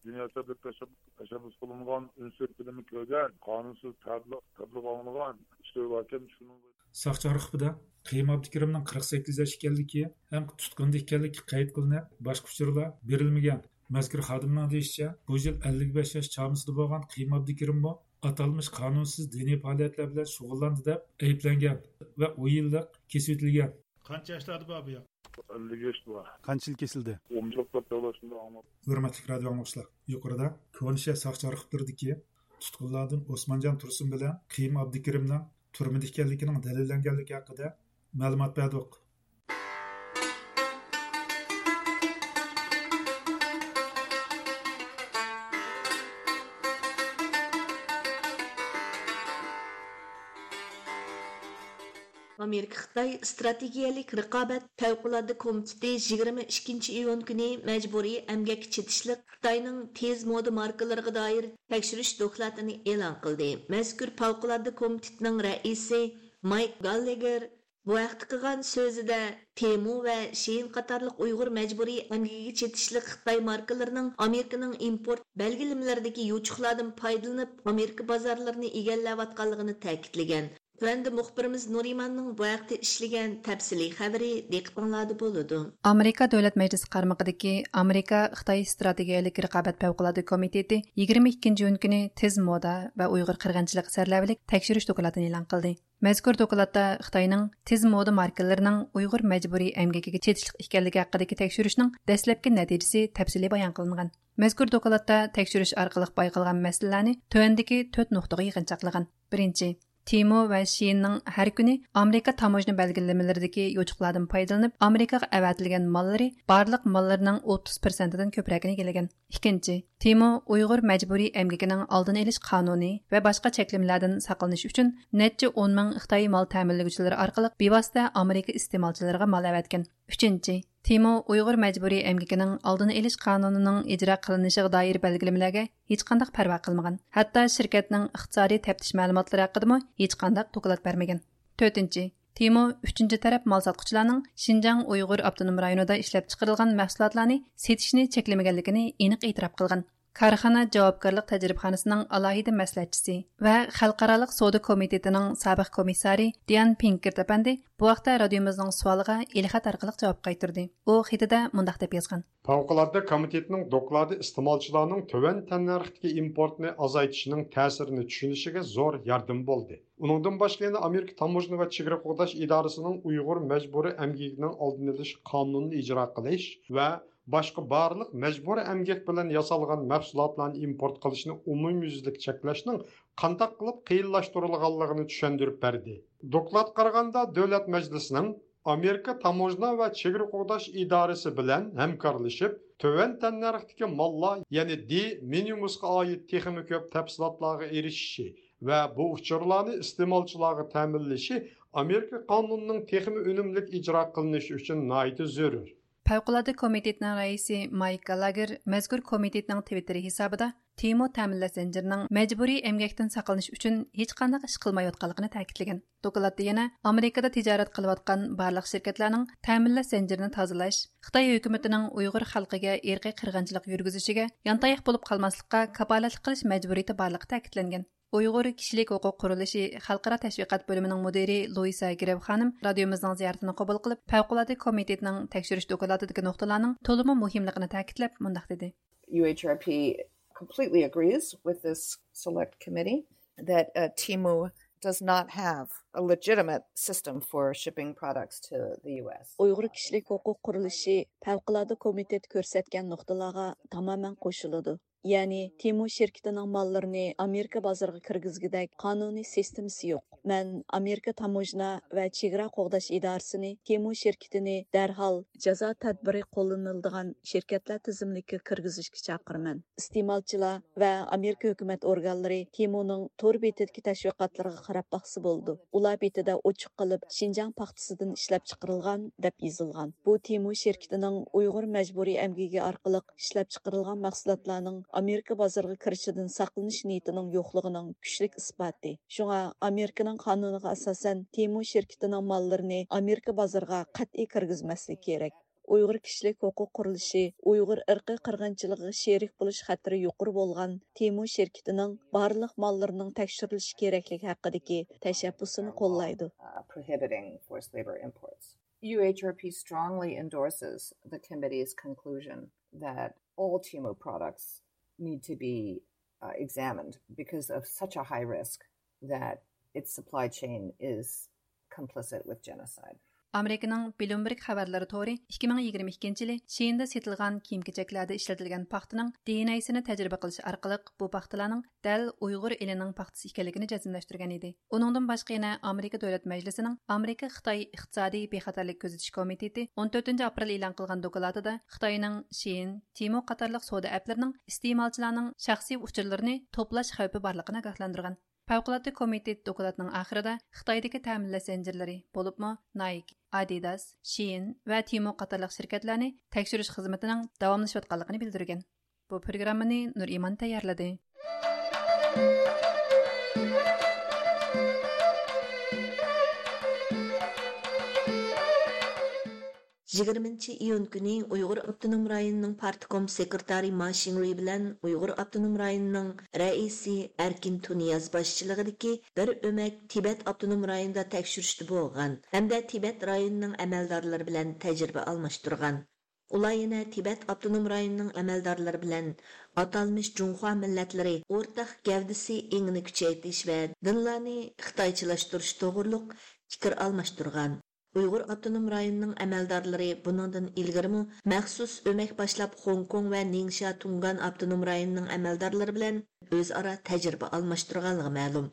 دىنىي ئەسەبلىك تەشەببۇس، تەشەببۇس قىلىنغان، ئۈنسىز فىلىمى كۆرگەن، قانۇنسىز تەبلىغ، تەبلىغ ئاڭلىغان، ئىشلىرى باركەن، شۇنىڭ ساقچى ئارخىپىدا قېيۇم ئابدۇكېرىمنىڭ قىرىق سەككىز ياش ئىكەنلىكى ھەم تۇتقۇندا ئىكەنلىكى قەيت قىلىنىپ، باشقا ئۇچۇرلار بېرىلمىگەن. مەزكۇر خادىمنىڭ دېيىشىچە، بۇ يىل ئەللىك بەش ياش چامىسىدا بولغان قېيۇم ئابدۇكېرىممۇ ئاتالمىش قانۇنسىز دىنىي پائالىيەتلەر بىلەن شۇغۇللاندى دەپ ئەيىبلەنگەن ۋە ئون يىللىق كېسىۋېتىلگەن. قانچە ياشلاردا بار بۇ ياق؟ ئەللىك ياشتا بار. قانچە يىل كېسىلدى؟ ئون يىللىق دەپ دەۋاتىدۇ ئاڭلاپ. ھۆرمەتلىك رادىئو ئاڭلىغۇچىلار، يۇقىرىدا كونا شەھەر ساقچى ئارخىپلىرىدىكى تۇتقۇنلاردىن ئوسمانجان تۇرسۇن بىلەن قېيۇم ئابدۇكېرىمنىڭ تۈرمىدە ئىكەنلىكىنىڭ دەلىللەنگەنلىكى ھەققىدە مەلۇمات بەردۇق. ئامېرىكا خىتاي ئىستراتېگىيەلىك رىقابەت پەۋقۇلئاددە كومىتېتى يىگىرمە ئىككىنچى ئىيۇن كۈنى مەجبۇرىي ئەمگەككە چېتىشلىق خىتاينىڭ تېز مودا ماركىلىرىغا دائىر تەكشۈرۈش دوكلاتىنى ئېلان قىلدى. مەزكۇر پەۋقۇلئاددە كومىتېتنىڭ رەئىسى مايك گاللېگېر بۇ ھەقتە قىلغان سۆزىدە، تېمۇ ۋە شېيىن قاتارلىق ئۇيغۇر مەجبۇرىي ئەمگىكىگە چېتىشلىق خىتاي ماركىلىرىنىڭ ئامېرىكىنىڭ ئىمپورت بەلگىلىمىلىرىدىكى يوچۇقلاردىن پايدىلىنىپ، ئامېرىكا بازارلىرىنى ئىگىلەۋاتقانلىقىنى تەكىتلىگەن. تۆۋەندە مۇخبىرىمىز نۇرىماننىڭ بۇ ھەقتە ئىشلىگەن تەپسىلىي خەۋىرى دىققىتىڭلاردا بولىدۇ. ئامېرىكا دۆلەت مەجلىسى قارمىقىدىكى ئامېرىكا خىتاي ئىستراتېگىيەلىك رىقابەت پەۋقۇلئاددە كومىتېتى يىگىرمە ئىككىنچى ئىيۇن كۈنى تېز مودا ۋە ئۇيغۇر قىرغىنچىلىقى سەرلەۋھىلىك تەكشۈرۈش دوكلاتىنى ئېلان قىلدى. مەزكۇر دوكلاتتا خىتاينىڭ تېز مودا ماركىلىرىنىڭ ئۇيغۇر مەجبۇرىي ئەمگىكىگە چېتىشلىق ئىكەنلىكى ھەققىدىكى تەكشۈرۈشنىڭ دەسلەپكى نەتىجىسى تەپسىلىي بايان قىلىنغان. مەزكۇر دوكلاتتا تەكشۈرۈش ئارقىلىق بايقالغان مەسىلىلەرنى تۆۋەندىكى تۆت نۇقتىغا يىغىنچاقلىغان. بىرىنچى، تېمۇ ۋە شېيىننىڭ ھەر كۈنى ئامېرىكا تاموژنا بەلگىلىمىلىرىدىكى يوچۇقلاردىن پايدىلىنىپ، ئامېرىكىغا ئەۋەتىلگەن ماللىرى بارلىق ماللىرىنىڭ ئوتتۇز پىرسەنتىدىن كۆپرەكىنى ئىگىلىگەن. ئىككىنچى، تېمۇ ئۇيغۇر مەجبۇرىي ئەمگىكىنىڭ ئالدىنى ئېلىش قانۇنى ۋە باشقا چەكلىمىلەردىن ساقلىنىش ئۈچۈن نەچچە ئون مىڭ خىتاي مال تەمىنلىگۈچىلىرى ئارقىلىق بىۋاسىتە ئامېرىكا ئىستېمالچىلىرىغا مال ئەۋەتكەن. ئۈچىنچى، تېمۇ ئۇيغۇر مەجبۇرىي ئەمگىكىنىڭ ئالدىنى ئېلىش قانۇنىنىڭ ئىجرا قىلىنىشىغا دائىر بەلگىلىمىلەرگە ھېچقانداق پەرۋا قىلمىغان. ھەتتا شىركەتنىڭ ئىقتىسادىي تەپتىش مەلۇماتلىرى ھەققىدىمۇ ھېچقانداق دوكلات بەرمىگەن. تۆتىنچى، تېمۇ ئۈچىنچى تەرەپ مال ساتقۇچىلارنىڭ شىنجاڭ ئۇيغۇر ئاپتونوم رايونىدا ئىشلەپچىقىرىلغان مەھسۇلاتلارنى سېتىشنى چەكلىمىگەنلىكىنى ئېنىق ئېتىراپ قىلغان. كارخانا جاۋابكارلىق تەجرىبىخانىسىنىڭ ئالاھىدە مەسلىھەتچىسى ۋە خەلقئارالىق سودا كومىتېتىنىڭ سابىق كومىسسارى دىيان پىنكېرت ئەپەندى بۇ ھەقتە رادىيومىزنىڭ سوئالىغا ئېلخەت ئارقىلىق جاۋاب قايتۇردى. ئۇ خېتىدە مۇنداق دەپ يازغان. پەۋقۇلئاددە كومىتېتنىڭ دوكلاتى ئىستېمالچىلارنىڭ تۆۋەن تەننەرختىكى ئىمپورتنى ئازايتىشىنىڭ تەسىرىنى چۈشىنىشىگە زور ياردىمى بولدى. ئۇنىڭدىن باشقا يەنە ئامېرىكا تاموژنا ۋە چېگرا قوغداش ئىدارىسىنىڭ ئۇيغۇر مەجبۇرىي ئەمگىكىنىڭ ئالدىنى ئېلىش قانۇنىنى ئىجرا قىلىش ۋە باشقا بارلىق مەجبۇرىي ئەمگەك بىلەن ياسالغان مەھسۇلاتلارنى ئىمپورت قىلىشنى ئومۇميۈزلۈك چەكلەشنىڭ قانداق قىلىپ قىيىنلاشتۇرۇلغانلىقىنى چۈشەندۈرۈپ بەردى. دوكلاتقا قارىغاندا، دۆلەت مەجلىسىنىڭ ئامېرىكا تاموژنا ۋە چېگرا قوغداش ئىدارىسى بىلەن ھەمكارلىشىپ، تۆۋەن تەننەرختىكى ماللار، يەنى دې مىنىمۇسقا ئائىت تېخىمۇ كۆپ تەپسىلاتلارغا ئېرىشىشى ۋە بۇ ئۇچۇرلارنى ئىستېمالچىلارغا تەمىنلىشى ئامېرىكا قانۇنىنىڭ تېخىمۇ ئۈنۈملۈك ئىجرا قىلىنىشى ئۈچۈن ناھايىتى زۆرۈر. پەۋقۇلئاددە كومىتېتىنىڭ رەئىسى مايك گالاگېر مەزكۇر كومىتېتنىڭ تىۋىتتېرى ھېسابىدا تېمو تەمىنلەش زەنجىرىنىڭ مەجبۇرىي ئەمگەكتىن ساقلىنىش ئۈچۈن ھېچقانداق ئىش قىلمايۋاتقانلىقىنى تەكىتلىگەن. دوكلاتتا يەنە ئامېرىكىدا تىجارەت قىلىۋاتقان بارلىق شىركەتلەرنىڭ تەمىنلەش زەنجىرىنى تازىلاش، خىتاي ھۆكۈمىتىنىڭ ئۇيغۇر خەلقىگە ئىرقىي قىرغىنچىلىق يۈرگۈزۈشىگە يانتاياق بولۇپ قالماسلىققا كاپالەتلىك قىلىش مەجبۇرىيىتى بارلىقى تەكىتلەنگەن. ئۇيغۇر كىشىلىك ھوقۇق قۇرۇلۇشى خەلقئارا تەشۋىقات بۆلۈمىنىڭ مۇدىرى لۇئىسا گرېف خانىم رادىيومىزنىڭ زىيارىتىنى قوبۇل قىلىپ، پەۋقۇلئاددە كومىتېتنىڭ تەكشۈرۈش دوكلاتىدىكى نۇقتىلارنىڭ تولىمۇ مۇھىملىقىنى تەكىتلەپ مۇنداق دېدى. U H R P completely agrees with this select committee that uh, Temu does not have a legitimate system for shipping products to the U S. ئۇيغۇر كىشىلىك ھوقۇق قۇرۇلۇشى پەۋقۇلئاددە كومىتېتى كۆرسەتكەن نۇقتىلارغا تامامەن قوشۇلىدۇ. يەنى تېمو شىركىتىنىڭ ماللىرىنى ئامېرىكا بازىرىغا كىرگۈزگۈدەك قانۇنىي سىستېمىسى يوق. مەن ئامېرىكا تاموژنا ۋە چېگرا قوغداش ئىدارىسىنى تېمو شىركىتىنى دەرھال جازا تەدبىرى قوللىنىلىدىغان شىركەتلەر تىزىملىكىگە كىرگۈزۈشكە چاقىرىمەن. ئىستېمالچىلار ۋە ئامېرىكا ھۆكۈمەت ئورگانلىرى تېمونىڭ تور بېتىدىكى تەشۋىقاتلىرىغا قاراپ باقسا بولىدۇ. ئۇلار بېتىدە ئوچۇق قىلىپ شىنجاڭ پاختىسىدىن ئىشلەپچىقىرىلغان دەپ يېزىلغان. بۇ تېمو شىركىتىنىڭ ئۇيغۇر مەجبۇرىي ئەمگىكى ئارقىلىق ئىشلەپچىقىرىلغان مەھسۇلاتلارنىڭ ئامېرىكا بازىرىغا كىرىشىدىن ساقلىنىش نىيىتىنىڭ يوقلۇقىنىڭ كۈچلۈك ئىسپاتى. شۇڭا ئامېرىكىنىڭ قانۇنىغا ئاساسەن تېمو شىركىتىنىڭ ماللىرىنى ئامېرىكا بازىرىغا قەتئىي كىرگۈزمەسلىك كېرەك. ئۇيغۇر كىشىلىك ھوقۇق قۇرۇلۇشى ئۇيغۇر ئىرقىي قىرغىنچىلىقىغا شېرىك بولۇش خەتىرى يۇقىرى بولغان تېمو شىركىتىنىڭ بارلىق ماللىرىنىڭ تەكشۈرۈلۈشى كېرەكلىكى ھەققىدىكى تەشەببۇسىنى قوللايدۇ. Uh, prohibiting forced labor imports. U H R P strongly endorses the committee's conclusion that all Temu products need to be uh, examined because of such a high risk that its supply chain is complicit with genocide. ئامېرىكىنىڭ بلومبېرگ خەۋەرلىرى تورى ئىككى مىڭ يىگىرمە ئىككىنچى يىلى شىئىندا سېتىلغان كىيىم-كېچەكلەردە ئىشلىتىلگەن پاختىنىڭ دى ئېن ئېيسىنى تەجرىبە قىلىش ئارقىلىق بۇ پاختىلارنىڭ دەل ئۇيغۇر ئېلىنىڭ پاختىسى ئىكەنلىكىنى جەزملەشتۈرگەن ئىدى. ئۇنىڭدىن باشقا يەنە ئامېرىكا دۆلەت مەجلىسىنىڭ ئامېرىكا خىتاي ئىقتىسادىي بىخەتەرلىك كۆزىتىش كومىتېتى ئون تۆتىنچى ئاپرېل ئېلان قىلغان دوكلاتىدا خىتاينىڭ شىئىن، تېمو قاتارلىق سودا ئەپلىرىنىڭ ئىستېمالچىلارنىڭ شەخسىي ئۇچۇرلىرىنى توپلاش خەۋپى بارلىقىنى ئاگاھلاندۇرغان. پەۋقۇلئاددە كومىتېت دوكلاتنىڭ ئاخىرىدا خىتايدىكى تەمىنلەش زەنجىرلىرى، بولۇپمۇ نايك، ئادىداس، شىئىن ۋە تېمو قاتارلىق شىركەتلەرنى تەكشۈرۈش خىزمىتىنىڭ داۋاملىشىۋاتقانلىقىنى بىلدۈرگەن. بۇ پروگراممىنى نۇرئىمان تەييارلىدى. يىگىرمىنچى ئىيۇن كۈنى ئۇيغۇر ئاپتونوم رايونىنىڭ پارتكوم سېكرېتارى ما شىڭرۇي بىلەن ئۇيغۇر ئاپتونوم رايونىنىڭ رەئىسى ئەركىن تۇنىياز باشچىلىقىدىكى بىر ئۆمەك تىبەت ئاپتونوم رايونىدا تەكشۈرۈشتە بولغان ھەمدە تىبەت رايونىنىڭ ئەمەلدارلىرى بىلەن تەجرىبە ئالماشتۇرغان. ئۇلار يەنە تىبەت ئاپتونوم رايونىنىڭ ئەمەلدارلىرى بىلەن ئاتالمىش جۇڭخۇا مىللەتلىرى ئورتاق گەۋدىسى ئېڭىنى كۈچەيتىش ۋە دىنلارنى خىتايچىلاشتۇرۇش توغرۇلۇق پىكىر ئالماشتۇرغان. ئۇيغۇر ئاپتونوم رايونىنىڭ ئەمەلدارلىرى بۇنىڭدىن ئىلگىرىمۇ مەخسۇس ئۆمەك باشلاپ، خوڭكوڭ ۋە نىڭشيا تۇڭگان ئاپتونوم رايونىنىڭ ئەمەلدارلىرى بىلەن ئۆزئارا تەجرىبە ئالماشتۇرغانلىقى مەلۇم.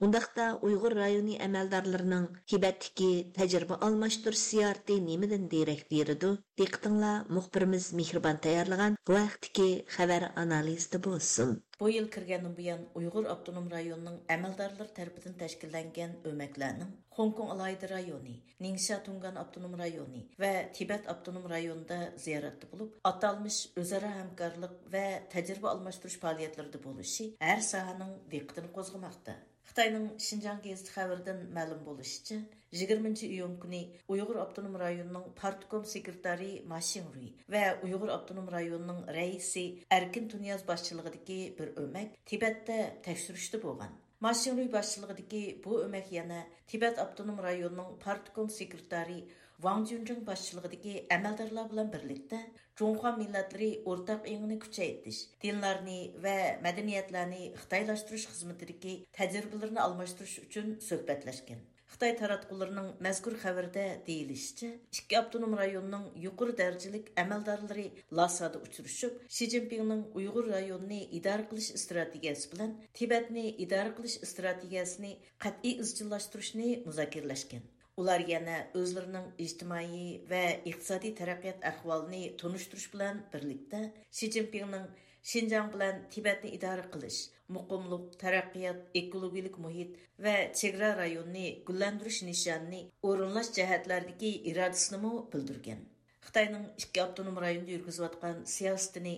ئۇنداقتا ئۇيغۇر رايونى ئەمەلدارلىرىنىڭ تىبەتتىكى تەجرىبە ئالماشتۇرۇش زىيارىتى نېمىدىن دېرەك بېرىدۇ؟ دىققىتىڭلار مۇخبىرىمىز مېھرىبان تەييارلىغان بۇ ھەقتىكى خەۋەر ئانالىزىدا بولسۇن. بۇ يىل كىرگەندىن بۇيان، ئۇيغۇر ئاپتونوم رايونىنىڭ ئەمەلدارلىرى تەرىپىدىن تەشكىللەنگەن ئۆمەكلەرنىڭ خوڭكوڭ ئالاھىدە رايونى، نىڭشيا تۇڭگان ئاپتونوم رايونى ۋە تىبەت ئاپتونوم رايونىدا زىيارەتتە بولۇپ، ئاتالمىش ئۆزئارا ھەمكارلىق ۋە تەجرىبە ئالماشتۇرۇش پائالىيەتلىرىدە بولۇشى ھەر ساھەنىڭ دىققىتىنى قوزغىماقتا. خىتاينىڭ شىنجاڭ گېزىتى خەۋىرىدىن مەلۇم بولۇشىچە، يىگىرمىنچى ئىيۇن كۈنى ئۇيغۇر ئاپتونوم رايونىنىڭ پارتكوم سېكرېتارى ما شىڭرۇي ۋە ئۇيغۇر ئاپتونوم رايونىنىڭ رەئىسى ئەركىن تۇنىياز باشچىلىقىدىكى بىر ئۆمەك تىبەتتە تەكشۈرۈشتە بولغان. ما شىڭرۇي باشچىلىقىدىكى بۇ ئۆمەك يەنە تىبەت ئاپتونوم رايونىنىڭ پارتكوم سېكرېتارى ۋاڭ جۈنجىڭ باشچىلىقىدىكى ئەمەلدارلار بىلەن بىرلىكتە جۇڭخۇا مىللەتلىرى ئورتاق ئېڭىنى كۈچەيتىش، دىنلارنى ۋە مەدەنىيەتلەرنى خىتايلاشتۇرۇش خىزمىتىدىكى تەجرىبىلىرىنى ئالماشتۇرۇش ئۈچۈن سۆھبەتلەشكەن. خىتاي تاراتقۇلىرىنىڭ مەزكۇر خەۋىرىدە دېيىلىشىچە، ئىككى ئاپتونوم رايوننىڭ يۇقىرى دەرىجىلىك ئەمەلدارلىرى لاسادا ئۇچرىشىپ، شى جىنپىڭنىڭ ئۇيغۇر رايونىنى ئىدارە قىلىش ئىستراتېگىيەسى بىلەن تىبەتنى ئىدارە قىلىش ئىستراتېگىيەسىنى قەتئىي ئىزچىللاشتۇرۇشنى مۇزاكىرىلەشكەن. ئۇلار يەنە ئۆزلىرىنىڭ ئىجتىمائىي ۋە ئىقتىسادىي تەرەققىيات ئەھۋالىنى تونۇشتۇرۇش بىلەن بىرلىكتە، شى جىنپىڭنىڭ شىنجاڭ بىلەن تىبەتنى ئىدارە قىلىش، مۇقىملىق، تەرەققىيات، ئېكولوگىيەلىك مۇھىت ۋە چېگرا رايونىنى گۈللەندۈرۈش نىشانىنى ئورۇنلاش جەھەتلەردىكى ئىرادىسىنىمۇ بىلدۈرگەن. خىتاينىڭ ئىككى ئاپتونوم رايوندا يۈرگۈزۈۋاتقان سىياسىتىنى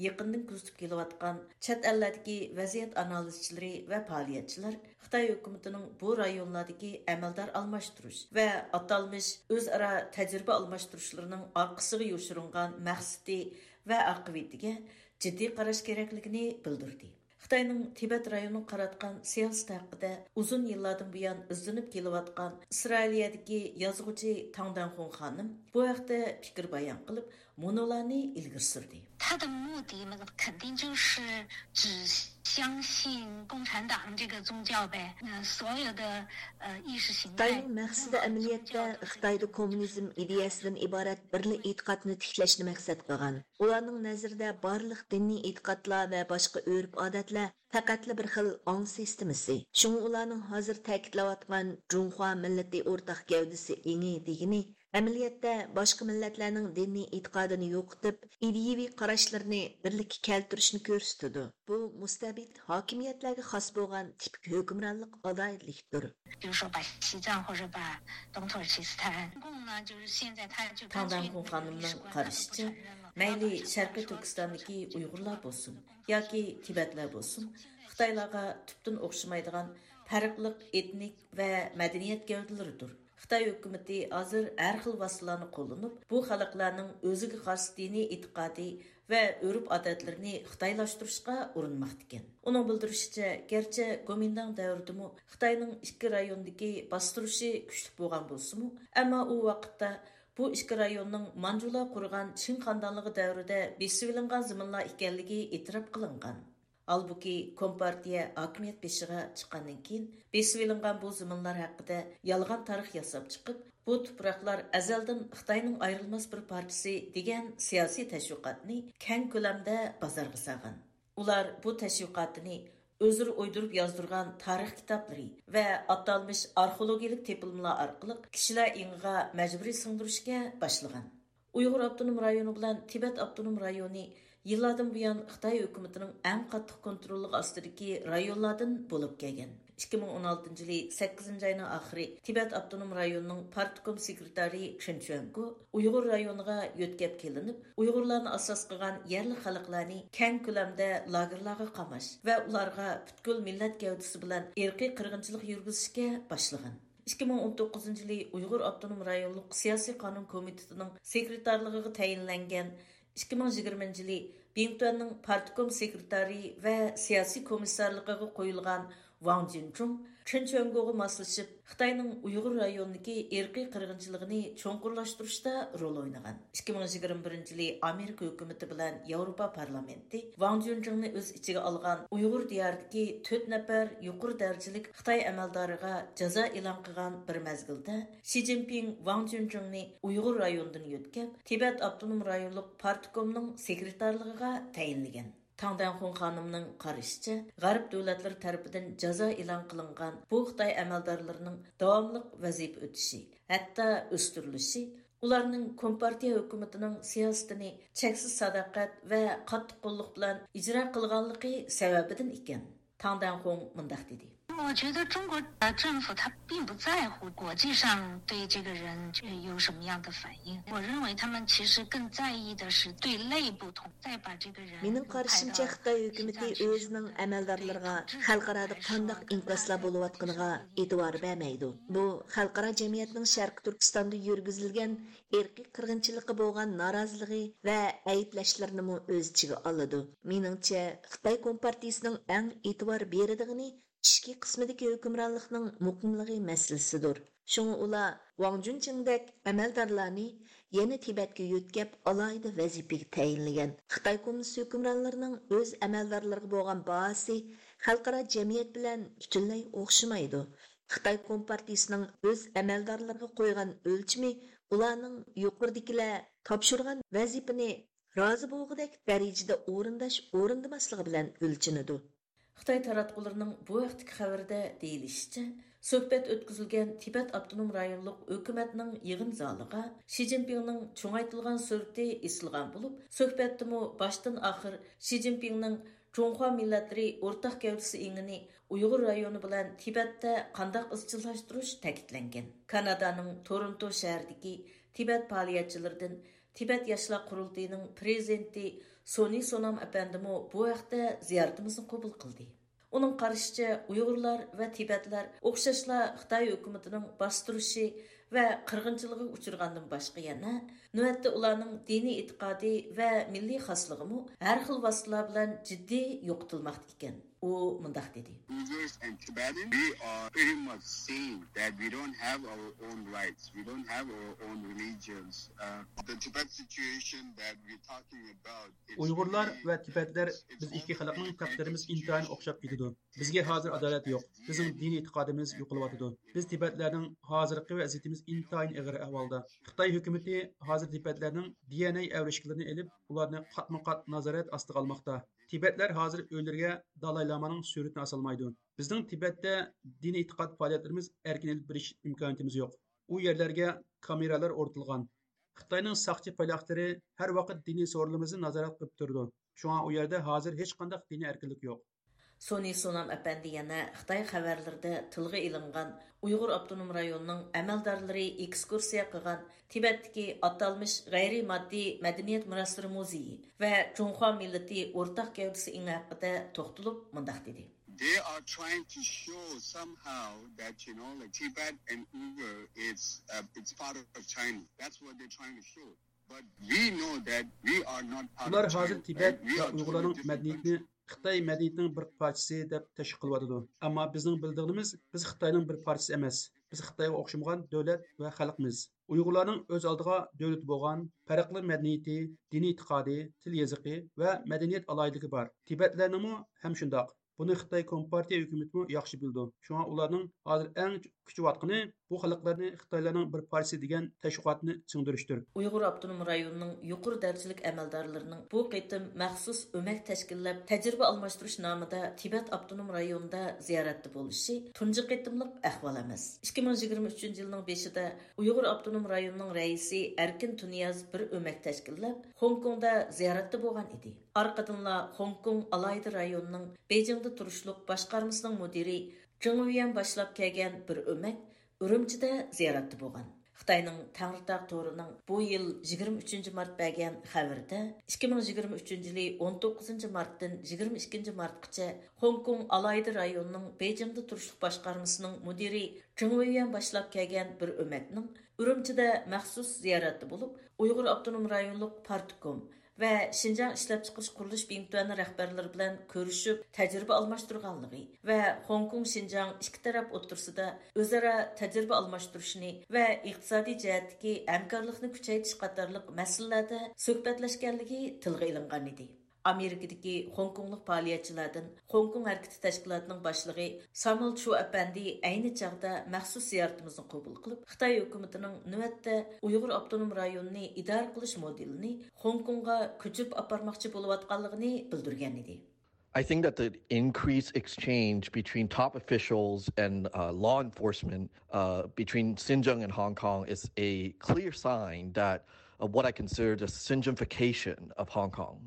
يېقىندىن كۆزىتىپ كېلىۋاتقان چەت ئەللەردىكى ۋەزىيەت ئانالىزچىلىرى ۋە پائالىيەتچىلەر خىتاي ھۆكۈمىتىنىڭ بۇ رايونلاردىكى ئەمەلدار ئالماشتۇرۇش ۋە ئاتالمىش ئۆزئارا تەجرىبە ئالماشتۇرۇشلىرىنىڭ ئارقىسىغا يوشۇرۇنغان مەقسىتى ۋە ئاقىۋىتىگە جىددىي قاراش كېرەكلىكىنى بىلدۈردى. خىتاينىڭ تىبەت رايونىغا قاراتقان سىياسىتى ھەققىدە ئۇزۇن يىللاردىن بۇيان ئىزدىنىپ كېلىۋاتقان ئىسرائىلىيەدىكى يازغۇچى تاڭ دەنخۇڭ خانىم بۇ ھەقتە پىكىر بايان قىلىپ، مۇنۇلارنى ئىلگىرى سۈردى. 他的目的嘛，肯定就是只相信共产党这个宗教呗。呃，所有的呃意识形态。 خىتاينىڭ مەقسىتى ئەمەلىيەتتە خىتايدا كوممۇنىزم ئىدىيەسىدىن ئىبارەت بىرلا ئېتىقادنى تىكلەشنى مەقسەت قىلغان. ئۇلارنىڭ نەزىرىدە بارلىق دىنىي ئېتىقادلار ۋە باشقا ئۆرپ-ئادەتلەر پەقەتلا بىر خىل ئاڭ سىستېمىسى. شۇڭا ئۇلارنىڭ ھازىر تەكىتلەۋاتقان جۇڭخۇا مىللىتى ئورتاق گەۋدىسى ئېڭى دېگىنى، ئەمەلىيەتتە باشقا مىللەتلەرنىڭ دىنىي ئېتىقادىنى يوقىتىپ، ئىدىيىۋى قاراشلىرىنى بىرلىككە كەلتۈرۈشنى كۆرسىتىدۇ. بۇ مۇستەبىت ھاكىمىيەتلەرگە خاس بولغان تىپىك ھۆكۈمرانلىق ئالاھىدىلىكتۇر. 比如说把西藏或者把东土耳其斯坦，中共呢，就是现在他就干脆 تاڭدەنخۇن خانىمنىڭ قارىشىچە، مەيلى شەرقىي تۈركىستاندىكى ئۇيغۇرلار بولسۇن ياكى تىبەتلەر بولسۇن، خىتايلارغا تۈپتىن ئوخشىمايدىغان پەرقلىق ئېتنىك ۋە مەدەنىيەت گەۋدىلىرىدۇر. خىتاي ھۆكۈمىتى ھازىر ھەر خىل ۋاسىتىلارنى قوللىنىپ، بۇ خەلقلەرنىڭ ئۆزىگە خاس دىنىي ئېتىقادى ۋە ئۆرپ-ئادەتلىرىنى خىتايلاشتۇرۇشقا ئۇرۇنماقتىكەن. ئۇنىڭ بىلدۈرۈشىچە، گەرچە گومىنداڭ دەۋرىدىمۇ خىتاينىڭ ئىككى رايوندىكى باستۇرۇشى كۈچلۈك بولغان بولسىمۇ، ئەمما ئۇ ۋاقىتتا بۇ ئىككى رايوننىڭ مانجۇلار قۇرغان چىڭ خاندانلىقى دەۋرىدە بېسىۋېلىنغان زېمىنلار ئىكەنلىكى ئېتىراپ قىلىنغان. ھالبۇكى، كومپارتىيە ھاكىمىيەت بېشىغا چىققاندىن كېيىن، بېسىۋېلىنغان بۇ زېمىنلار ھەققىدە يالغان تارىخ ياساپ چىقىپ، بۇ تۇپراقلار ئەزەلدىن خىتاينىڭ ئايرىلماس بىر پارچىسى دېگەن سىياسىي تەشۋىقاتنى كەڭ كۆلەمدە بازارغا سالغان. ئۇلار بۇ تەشۋىقاتىنى ئۆزلىرى ئويدۇرۇپ يازدۇرغان تارىخ كىتابلىرى ۋە ئاتالمىش ئارخېئولوگىيەلىك تېپىلمىلار ئارقىلىق كىشىلەر ئېڭىغا مەجبۇرىي سىڭدۈرۈشكە باشلىغان. ئۇيغۇر ئاپتونوم رايونى بىلەن تىبەت ئاپتونوم رايونى يىللاردىن بۇيان خىتاي ھۆكۈمىتىنىڭ ئەڭ قاتتىق كونتروللۇقى ئاستىدىكى رايونلاردىن بولۇپ كەلگەن. ئىككى مىڭ ئون ئالتىنچى يىلى سەككىزىنچى ئاينىڭ ئاخىرى تىبەت ئاپتونوم رايونىنىڭ پارتكوم سېكرېتارى چېن چۈەنگو ئۇيغۇر رايونىغا يۆتكەپ كېلىنىپ، ئۇيغۇرلارنى ئاساس قىلغان يەرلىك خەلقلەرنى كەڭ كۆلەمدە لاگېرلارغا قاماش ۋە ئۇلارغا پۈتكۈل مىللەت گەۋدىسى بىلەن ئىرقىي قىرغىنچىلىق يۈرگۈزۈشكە باشلىغان. ئىككى مىڭ ئون توققۇزىنچى يىلى ئۇيغۇر ئاپتونوم رايونلۇق سىياسىي قانۇن كومىتېتىنىڭ سېكرېتارلىقىغا تەيىنلەنگەن، ئىككى مىڭ يىگىرمىنچى يىلى بىڭتۈەننىڭ پارتكوم سېكرېتارى ۋە سىياسىي كومىسسارلىقىغا قويۇلغان ۋاڭ جىنجۇڭ چېن چۈەنگوغا ماسلىشىپ، خىتاينىڭ ئۇيغۇر رايونىدىكى ئىرقىي قىرغىنچىلىقىنى چوڭقۇرلاشتۇرۇشتا رول ئوينىغان. ئىككى مىڭ يىگىرمە بىرىنچى يىلى ئامېرىكا ھۆكۈمىتى بىلەن ياۋروپا پارلامېنتى ۋاڭ جۈنجىڭنى ئۆز ئىچىگە ئالغان ئۇيغۇر دىيارىدىكى تۆت نەپەر يۇقىرى دەرىجىلىك خىتاي ئەمەلدارىغا جازا ئېلان قىلغان بىر مەزگىلدە، شى جىنپىڭ ۋاڭ جۈنجىڭنى ئۇيغۇر رايونىدىن يۆتكەپ، تىبەت ئاپتونوم رايونلۇق پارتكومنىڭ سېكرېتارلىقىغا تەيىنلىگەن. تاڭ دەنخۇڭ خانىمنىڭ قارىشىچە، غەرب دۆلەتلىرى تەرىپىدىن جازا ئېلان قىلىنغان بۇ خىتاي ئەمەلدارلىرىنىڭ داۋاملىق ۋەزىپە ئۆتىشى، ھەتتا ئۆستۈرۈلۈشى، ئۇلارنىڭ كومپارتىيە ھۆكۈمىتىنىڭ سىياسىتىنى چەكسىز ساداقەت ۋە قاتتىق قوللۇق بىلەن ئىجرا قىلغانلىقى سەۋەبىدىن ئىكەن. تاڭ دەنخۇڭ مۇنداق دېدى. 我觉得中国政府他并不在乎国际上对这个人有什么样的反应，我认为他们其实更在意的是对内部统，再把这个人 مېنىڭ قارىشىمچە، خىتاي ھۆكۈمىتى ئۆزىنىڭ ئەمەلدارلىرىغا خەلقئارادا قانداق ئىنكاسلار بولۇۋاتقىنىغا ئېتىبار بەرمەيدۇ. بۇ خەلقئارا جەمئىيەتنىڭ شەرقىي تۈركىستاندا يۈرگۈزۈلگەن ئىرقىي قىرغىنچىلىققا بولغان نارازىلىقى ۋە ئەيىبلەشلىرىنىمۇ ئۆز ئىچىگە ئالىدۇ. مېنىڭچە، خىتاي كومپارتىيىسىنىڭ ئەڭ ئېتىبار بېرىدىغىنى ئىچكى قىسمىدىكى ھۆكۈمرانلىقنىڭ مۇقىملىقى مەسىلىسىدۇر. شۇڭا ئۇلار ۋاڭ جۈنچىڭدەك ئەمەلدارلارنى يەنە تىبەتكە يۆتكەپ، ئالاھىدە ۋەزىپىگە تەيىنلىگەن. خىتاي كوممۇنىست ھۆكۈمرانلىرىنىڭ ئۆز ئەمەلدارلىرىغا بولغان باھاسى خەلقئارا جەمئىيەت بىلەن پۈتۈنلەي ئوخشىمايدۇ. خىتاي كومپارتىيىسىنىڭ ئۆز ئەمەلدارلىرىغا قويغان ئۆلچىمى ئۇلارنىڭ يۇقىرىدىكىلەر تاپشۇرغان ۋەزىپىنى رازى بولغۇدەك دەرىجىدە ئورۇنداش-ئورۇندىماسلىقى بىلەن ئۆلچىنىدۇ. خىتاي تاراتقۇلىرىنىڭ بۇ ھەقتىكى خەۋىرىدە دېيىلىشىچە، سۆھبەت ئۆتكۈزۈلگەن تىبەت ئاپتونوم رايونلۇق ھۆكۈمەتنىڭ يىغىن زالىغا شى جىنپىڭنىڭ چوڭايتىلغان سۈرىتى ئېسىلغان بولۇپ، سۆھبەتتىمۇ باشتىن ئاخىر شى جىنپىڭنىڭ جۇڭخۇا مىللەتلىرى ئورتاق گەۋدىسى ئېڭىنى ئۇيغۇر رايونى بىلەن تىبەتتە قانداق ئىزچىللاشتۇرۇش تەكىتلەنگەن. كانادانىڭ تورونتو شەھىرىدىكى تىبەت پائالىيەتچىلىرىدىن تىبەت ياشلار قۇرۇلتىيىنىڭ پىرېزىدېنتى سونى سونام ئەپەندىمۇ بۇ ھەقتە زىيارىتىمىزنى قوبۇل قىلدى. ئۇنىڭ قارىشىچە، ئۇيغۇرلار ۋە تىبەتلەر ئوخشاشلا خىتاي ھۆكۈمىتىنىڭ باستۇرۇشى ۋە قىرغىنچىلىقىغا ئۇچرىغاندىن باشقا يەنە، نۆۋەتتە ئۇلارنىڭ دىنىي ئېتىقادى ۋە مىللىي خاسلىقىمۇ ھەر خىل ۋاسىتىلەر بىلەن جىددىي يوقىتىلماقتا ئىكەن. ئۇ مۇنداق دېدى. Uyghurs and Tibetans, we are pretty much same that we don't have our own rights, we don't have our own religions. Uh, the Tibet situation that we're talking about, it's ئۇيغۇرلار really, ۋە تىبەتلەر، it's بىز ئىككى خەلقنىڭ تەقدىرىمىز ئىنتايىن ئوخشاپ كېتىدۇ. بىزگە ھازىر ئادالەت يوق. بىزنىڭ دىنىي ئېتىقادىمىز يوقىلىۋاتىدۇ. بىز تىبەتلەرنىڭ ھازىرقى ۋەزىيىتىمىز ئىنتايىن ئېغىر ئەھۋالدا. خىتاي ھۆكۈمىتى ھازىر تىبەتلەرنىڭ دى ئېن ئەي ئەۋرىشكىلىرىنى ئېلىپ، ئۇلارنى قاتمۇ قات نازارەت ئاستىغا ئالماقتا. تىبەتلەر ھازىر ئۆيلىرىگە دالاي لامانىڭ سۈرىتىنى ئاسالمايدۇ. بىزنىڭ تىبەتتە دىنىي ئېتىقاد پائالىيەتلىرىمىز ئەركىن ئېلىپ بېرىش ئىمكانىيىتىمىز يوق. ئۇ يەرلەرگە كامېرالار ئورنىتىلغان. خىتاينىڭ ساقچى پايلاقلىرى ھەر ۋاقىت دىنىي سورۇنلىرىمىزنى نازارەت قىلىپ تۇرىدۇ. شۇڭا ئۇ يەردە ھازىر ھېچقانداق دىنىي ئەركىنلىك يوق. سونى سونام ئەپەندى يەنە خىتاي خەۋەرلىرىدە تىلغا ئېلىنغان ئۇيغۇر ئاپتونوم رايونىنىڭ ئەمەلدارلىرى ئېكسكۇرسىيە قىلغان تىبەتتىكى ئاتالمىش غەيرىي ماددىي مەدەنىيەت مىراسلىرى مۇزېيى ۋە جۇڭخۇا مىللىتى ئورتاق گەۋدىسى ئېڭى ھەققىدە توختىلىپ مۇنداق دېدى. They are trying to show somehow that, you know, like, Tibet and Uyghur, it's, uh, it's part of China. That's what they're trying to show. But we know that we are not part of China, right? ئۇلار ھازىر تىبەت ۋە ئۇيغۇرلارنىڭ مەدەنىيىتىنى خىتاي مەدەنىيىتىنىڭ بىر پارچىسى دەپ تەشۋىق قىلىۋاتىدۇ. ئەمما بىزنىڭ بىلىدىغىنىمىز، بىز خىتاينىڭ بىر پارچىسى ئەمەس. بىز خىتايغا ئوخشىمىغان دۆلەت ۋە خەلقمىز. ئۇيغۇرلارنىڭ ئۆز ئالدىغا دۆلىتى بولغان، پەرقلىق مەدەنىيىتى، دىنىي ئېتىقادى، تىل يېزىقى ۋە مەدەنىيەت ئالاھىدىلىكى بار. تىبەتلەرنىڭمۇ ھەم شۇنداق. بۇنى خىتاي كومپارتىيە ھۆكۈمىتىمۇ ياخشى بىلىدۇ. شۇڭا ئۇلارنىڭ ھازىر ئەڭ كۈچىۋاتقىنى بۇ خەلقلەرنى خىتايلارنىڭ بىر پارچىسى دېگەن تەشۋىقاتنى سىڭدۈرۈشتۇر. ئۇيغۇر ئاپتونوم رايونىنىڭ يۇقىرى دەرىجىلىك ئەمەلدارلىرىنىڭ بۇ قېتىم مەخسۇس ئۆمەك تەشكىللەپ، تەجرىبە ئالماشتۇرۇش نامىدا تىبەت ئاپتونوم رايونىدا زىيارەتتە بولۇشى تۇنجى قېتىملىق ئەھۋال ئەمەس. ئىككى مىڭ يىگىرمە ئۈچىنچى يىلنىڭ بېشىدا ئۇيغۇر ئاپتونوم رايونىنىڭ رەئىسى ئەركىن تۇنىياز بىر ئۆمەك تەشكىللەپ، خوڭكوڭدا زىيارەتتە بولغان ئىدى. ئارقىدىنلا خوڭكوڭ ئالاھىدە رايونىنىڭ بېيجىڭدا تۇرۇشلۇق باشقارمىسىنىڭ مۇدىرى جېڭ ۋيۈەن باشلاپ كەلگەن بىر ئۆمەك ئۈرۈمچىدە زىيارەتتە بولغان. خىتاينىڭ تەڭرىتاغ تورىنىڭ بۇ يىل يىگىرمە ئۈچىنچى مارت بەرگەن خەۋىرىدە، ئىككى مىڭ يىگىرمە ئۈچىنچى يىلى ئون توققۇزىنچى مارتتىن يىگىرمە ئىككىنچى مارتقىچە خوڭكوڭ ئالاھىدە رايونىنىڭ بېيجىڭدا تۇرۇشلۇق باشقارمىسىنىڭ مۇدىرى جېڭ ۋيۈەن باشلاپ كەلگەن بىر ئۆمەكنىڭ ئۈرۈمچىدە مەخسۇس زىيارەتتە بولۇپ، ئۇيغۇر ئاپتونوم رايونلۇق پارتكوم ۋە شىنجاڭ ئىشلەپچىقىرىش قۇرۇلۇش بىڭتۈەن رەھبەرلىرى بىلەن كۆرۈشۈپ تەجرىبە ئالماشتۇرغانلىقى ۋە خوڭكوڭ شىنجاڭ ئىككى تەرەپ ئوتتۇرىسىدا ئۆزئارا تەجرىبە ئالماشتۇرۇشنى ۋە ئىقتىسادىي جەھەتتىكى ھەمكارلىقنى كۈچەيتىش قاتارلىق مەسىلىلەردە سۆھبەتلەشكەنلىكى تىلغا ئېلىنغانىدى. ئامېرىكىدىكى خوڭكوڭلۇق پائالىيەتچىلەردىن خوڭكوڭ ھەرىكىتى تەشكىلاتىنىڭ باشلىقى سامۇئېل چۇ ئەپەندى ئەينى چاغدا مەخسۇس زىيارىتىمىزنى قوبۇل قىلىپ، خىتاي ھۆكۈمىتىنىڭ نۆۋەتتە ئۇيغۇر ئاپتونوم رايونىنى ئىدارە قىلىش مودېلىنى خوڭكوڭغا كۆچۈرۈپ ئاپارماقچى بولۇۋاتقانلىقىنى بىلدۈرگەن ئىدى. I think that the increased exchange between top officials and uh, law enforcement uh, between Xinjiang and Hong Kong is a clear sign that of what I consider the Xinjiangification of Hong Kong.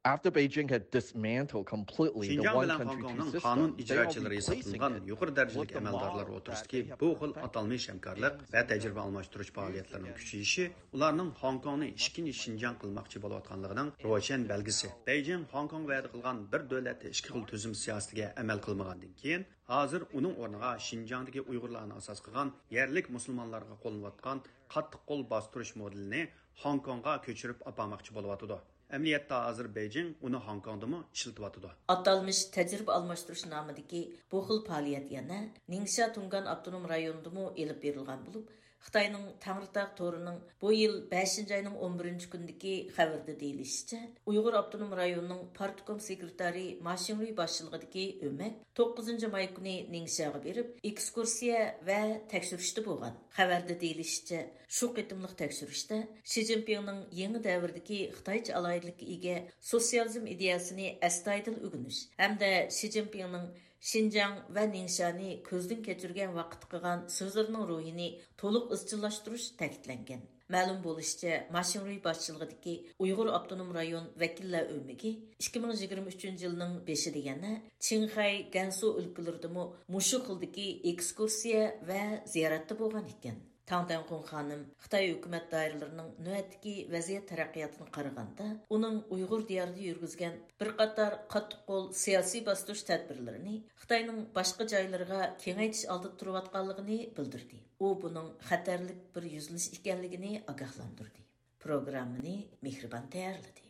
After Beijing had dismantled completely the شىنجاڭ بىلەن خوڭكوڭنىڭ قانۇن ئىجراچىلىرى ھېسابلانغان يۇقىرى دەرىجىلىك ئەمەلدارلار ئوتتۇرىسىدىكى بۇ خىل ئاتالمىش ھەمكارلىق ۋە تەجرىبە ئالماشتۇرۇش پائالىيەتلىرىنىڭ كۈچىيىشى ئۇلارنىڭ خوڭكوڭنى ئىككىنچى شىنجاڭ قىلماقچى بولۇۋاتقانلىقىنىڭ روشەن بەلگىسى. بېيجىڭ خوڭكوڭغا ۋەدە قىلغان بىر دۆلەتتە ئىككى خىل تۈزۈم سىياسىتىگە ئەمەل قىلمىغاندىن كېيىن، ھازىر ئۇنىڭ ئورنىغا شىنجاڭدىكى ئۇيغۇرلارنى ئاساس قىلغان يەرلىك مۇسۇلمانلارغا قوللىنىۋاتقان قاتتىق قول باستۇرۇش مودېلىنى خوڭكوڭغا كۆچۈرۈپ ئاپارماقچى بولۇۋاتىدۇ. ئەمەلىيەتتە ھازىر بېيجىڭ ئۇنى خوڭكوڭدىمۇ ئىشلىتىۋاتىدۇ. ئاتالمىش تەجرىبە ئالماشتۇرۇش نامىدىكى بۇ خىل پائالىيەت يەنە نىڭشيا تۇڭگان ئاپتونوم رايونىدىمۇ ئېلىپ بېرىلغان بولۇپ، خىتاينىڭ تەڭرىتاغ تورىنىڭ بۇ يىل بەشىنچى ئاينىڭ ئون بىرىنچى كۈنىدىكى خەۋىرىدە دېيىلىشىچە، ئۇيغۇر ئاپتونوم رايونىنىڭ پارتكوم سېكرېتارى ما شىڭرۇي باشچىلىقىدىكى ئۆمەك توققۇزىنچى ماي كۈنى نىڭشياغا بېرىپ، ئېكسكۇرسىيە ۋە تەكشۈرۈشتە بولغان. خەۋەردە دېيىلىشىچە، شۇ قېتىملىق تەكشۈرۈشتە شى جىنپىڭنىڭ يېڭى دەۋردىكى خىتايچە ئالاھىدىلىككە ئىگە سوتسىيالىزم ئىدىيەسىنى ئەستايىدىل ئۆگىنىش ھەمدە شى جىنپىڭنىڭ شىنجاڭ ۋە نىڭشانى كۆزدىن كەچۈرگەن ۋاقىتتا قىلغان سۆزلىرىنىڭ روھىنى تولۇق ئىزچىللاشتۇرۇش تەكىتلەنگەن. مەلۇم بولۇشىچە، ما شىڭرۇي باشچىلىقىدىكى ئۇيغۇر ئاپتونوم رايون ۋەكىللەر ئۆمىكى ئىككى مىڭ يىگىرمە ئۈچىنچى يىلنىڭ بېشىدا يەنە چىڭخەي، گەنسۇ ئۆلكىلىرىدىمۇ مۇشۇ خىلدىكى ئېكسكۇرسىيە ۋە زىيارەتتە بولغان ئىكەن. تاڭ دەنخۇن خانىم خىتاي ھۆكۈمەت دائىرىلىرىنىڭ نۆۋەتتىكى ۋەزىيەت تەرەققىياتىنى قارىغاندا، ئۇنىڭ ئۇيغۇر دىيارىدا يۈرگۈزگەن بىر قاتار قاتتىق قول سىياسىي باستۇرۇش تەدبىرلىرىنى خىتاينىڭ باشقا جايلىرىغا كېڭەيتىش ئالدىدا تۇرۇۋاتقانلىقىنى بىلدۈردى. ئۇ بۇنىڭ خەتەرلىك بىر يۈزلىنىش ئىكەنلىكىنى ئاگاھلاندۇردى. پروگراممىنى مېھرىبان تەييارلىدى.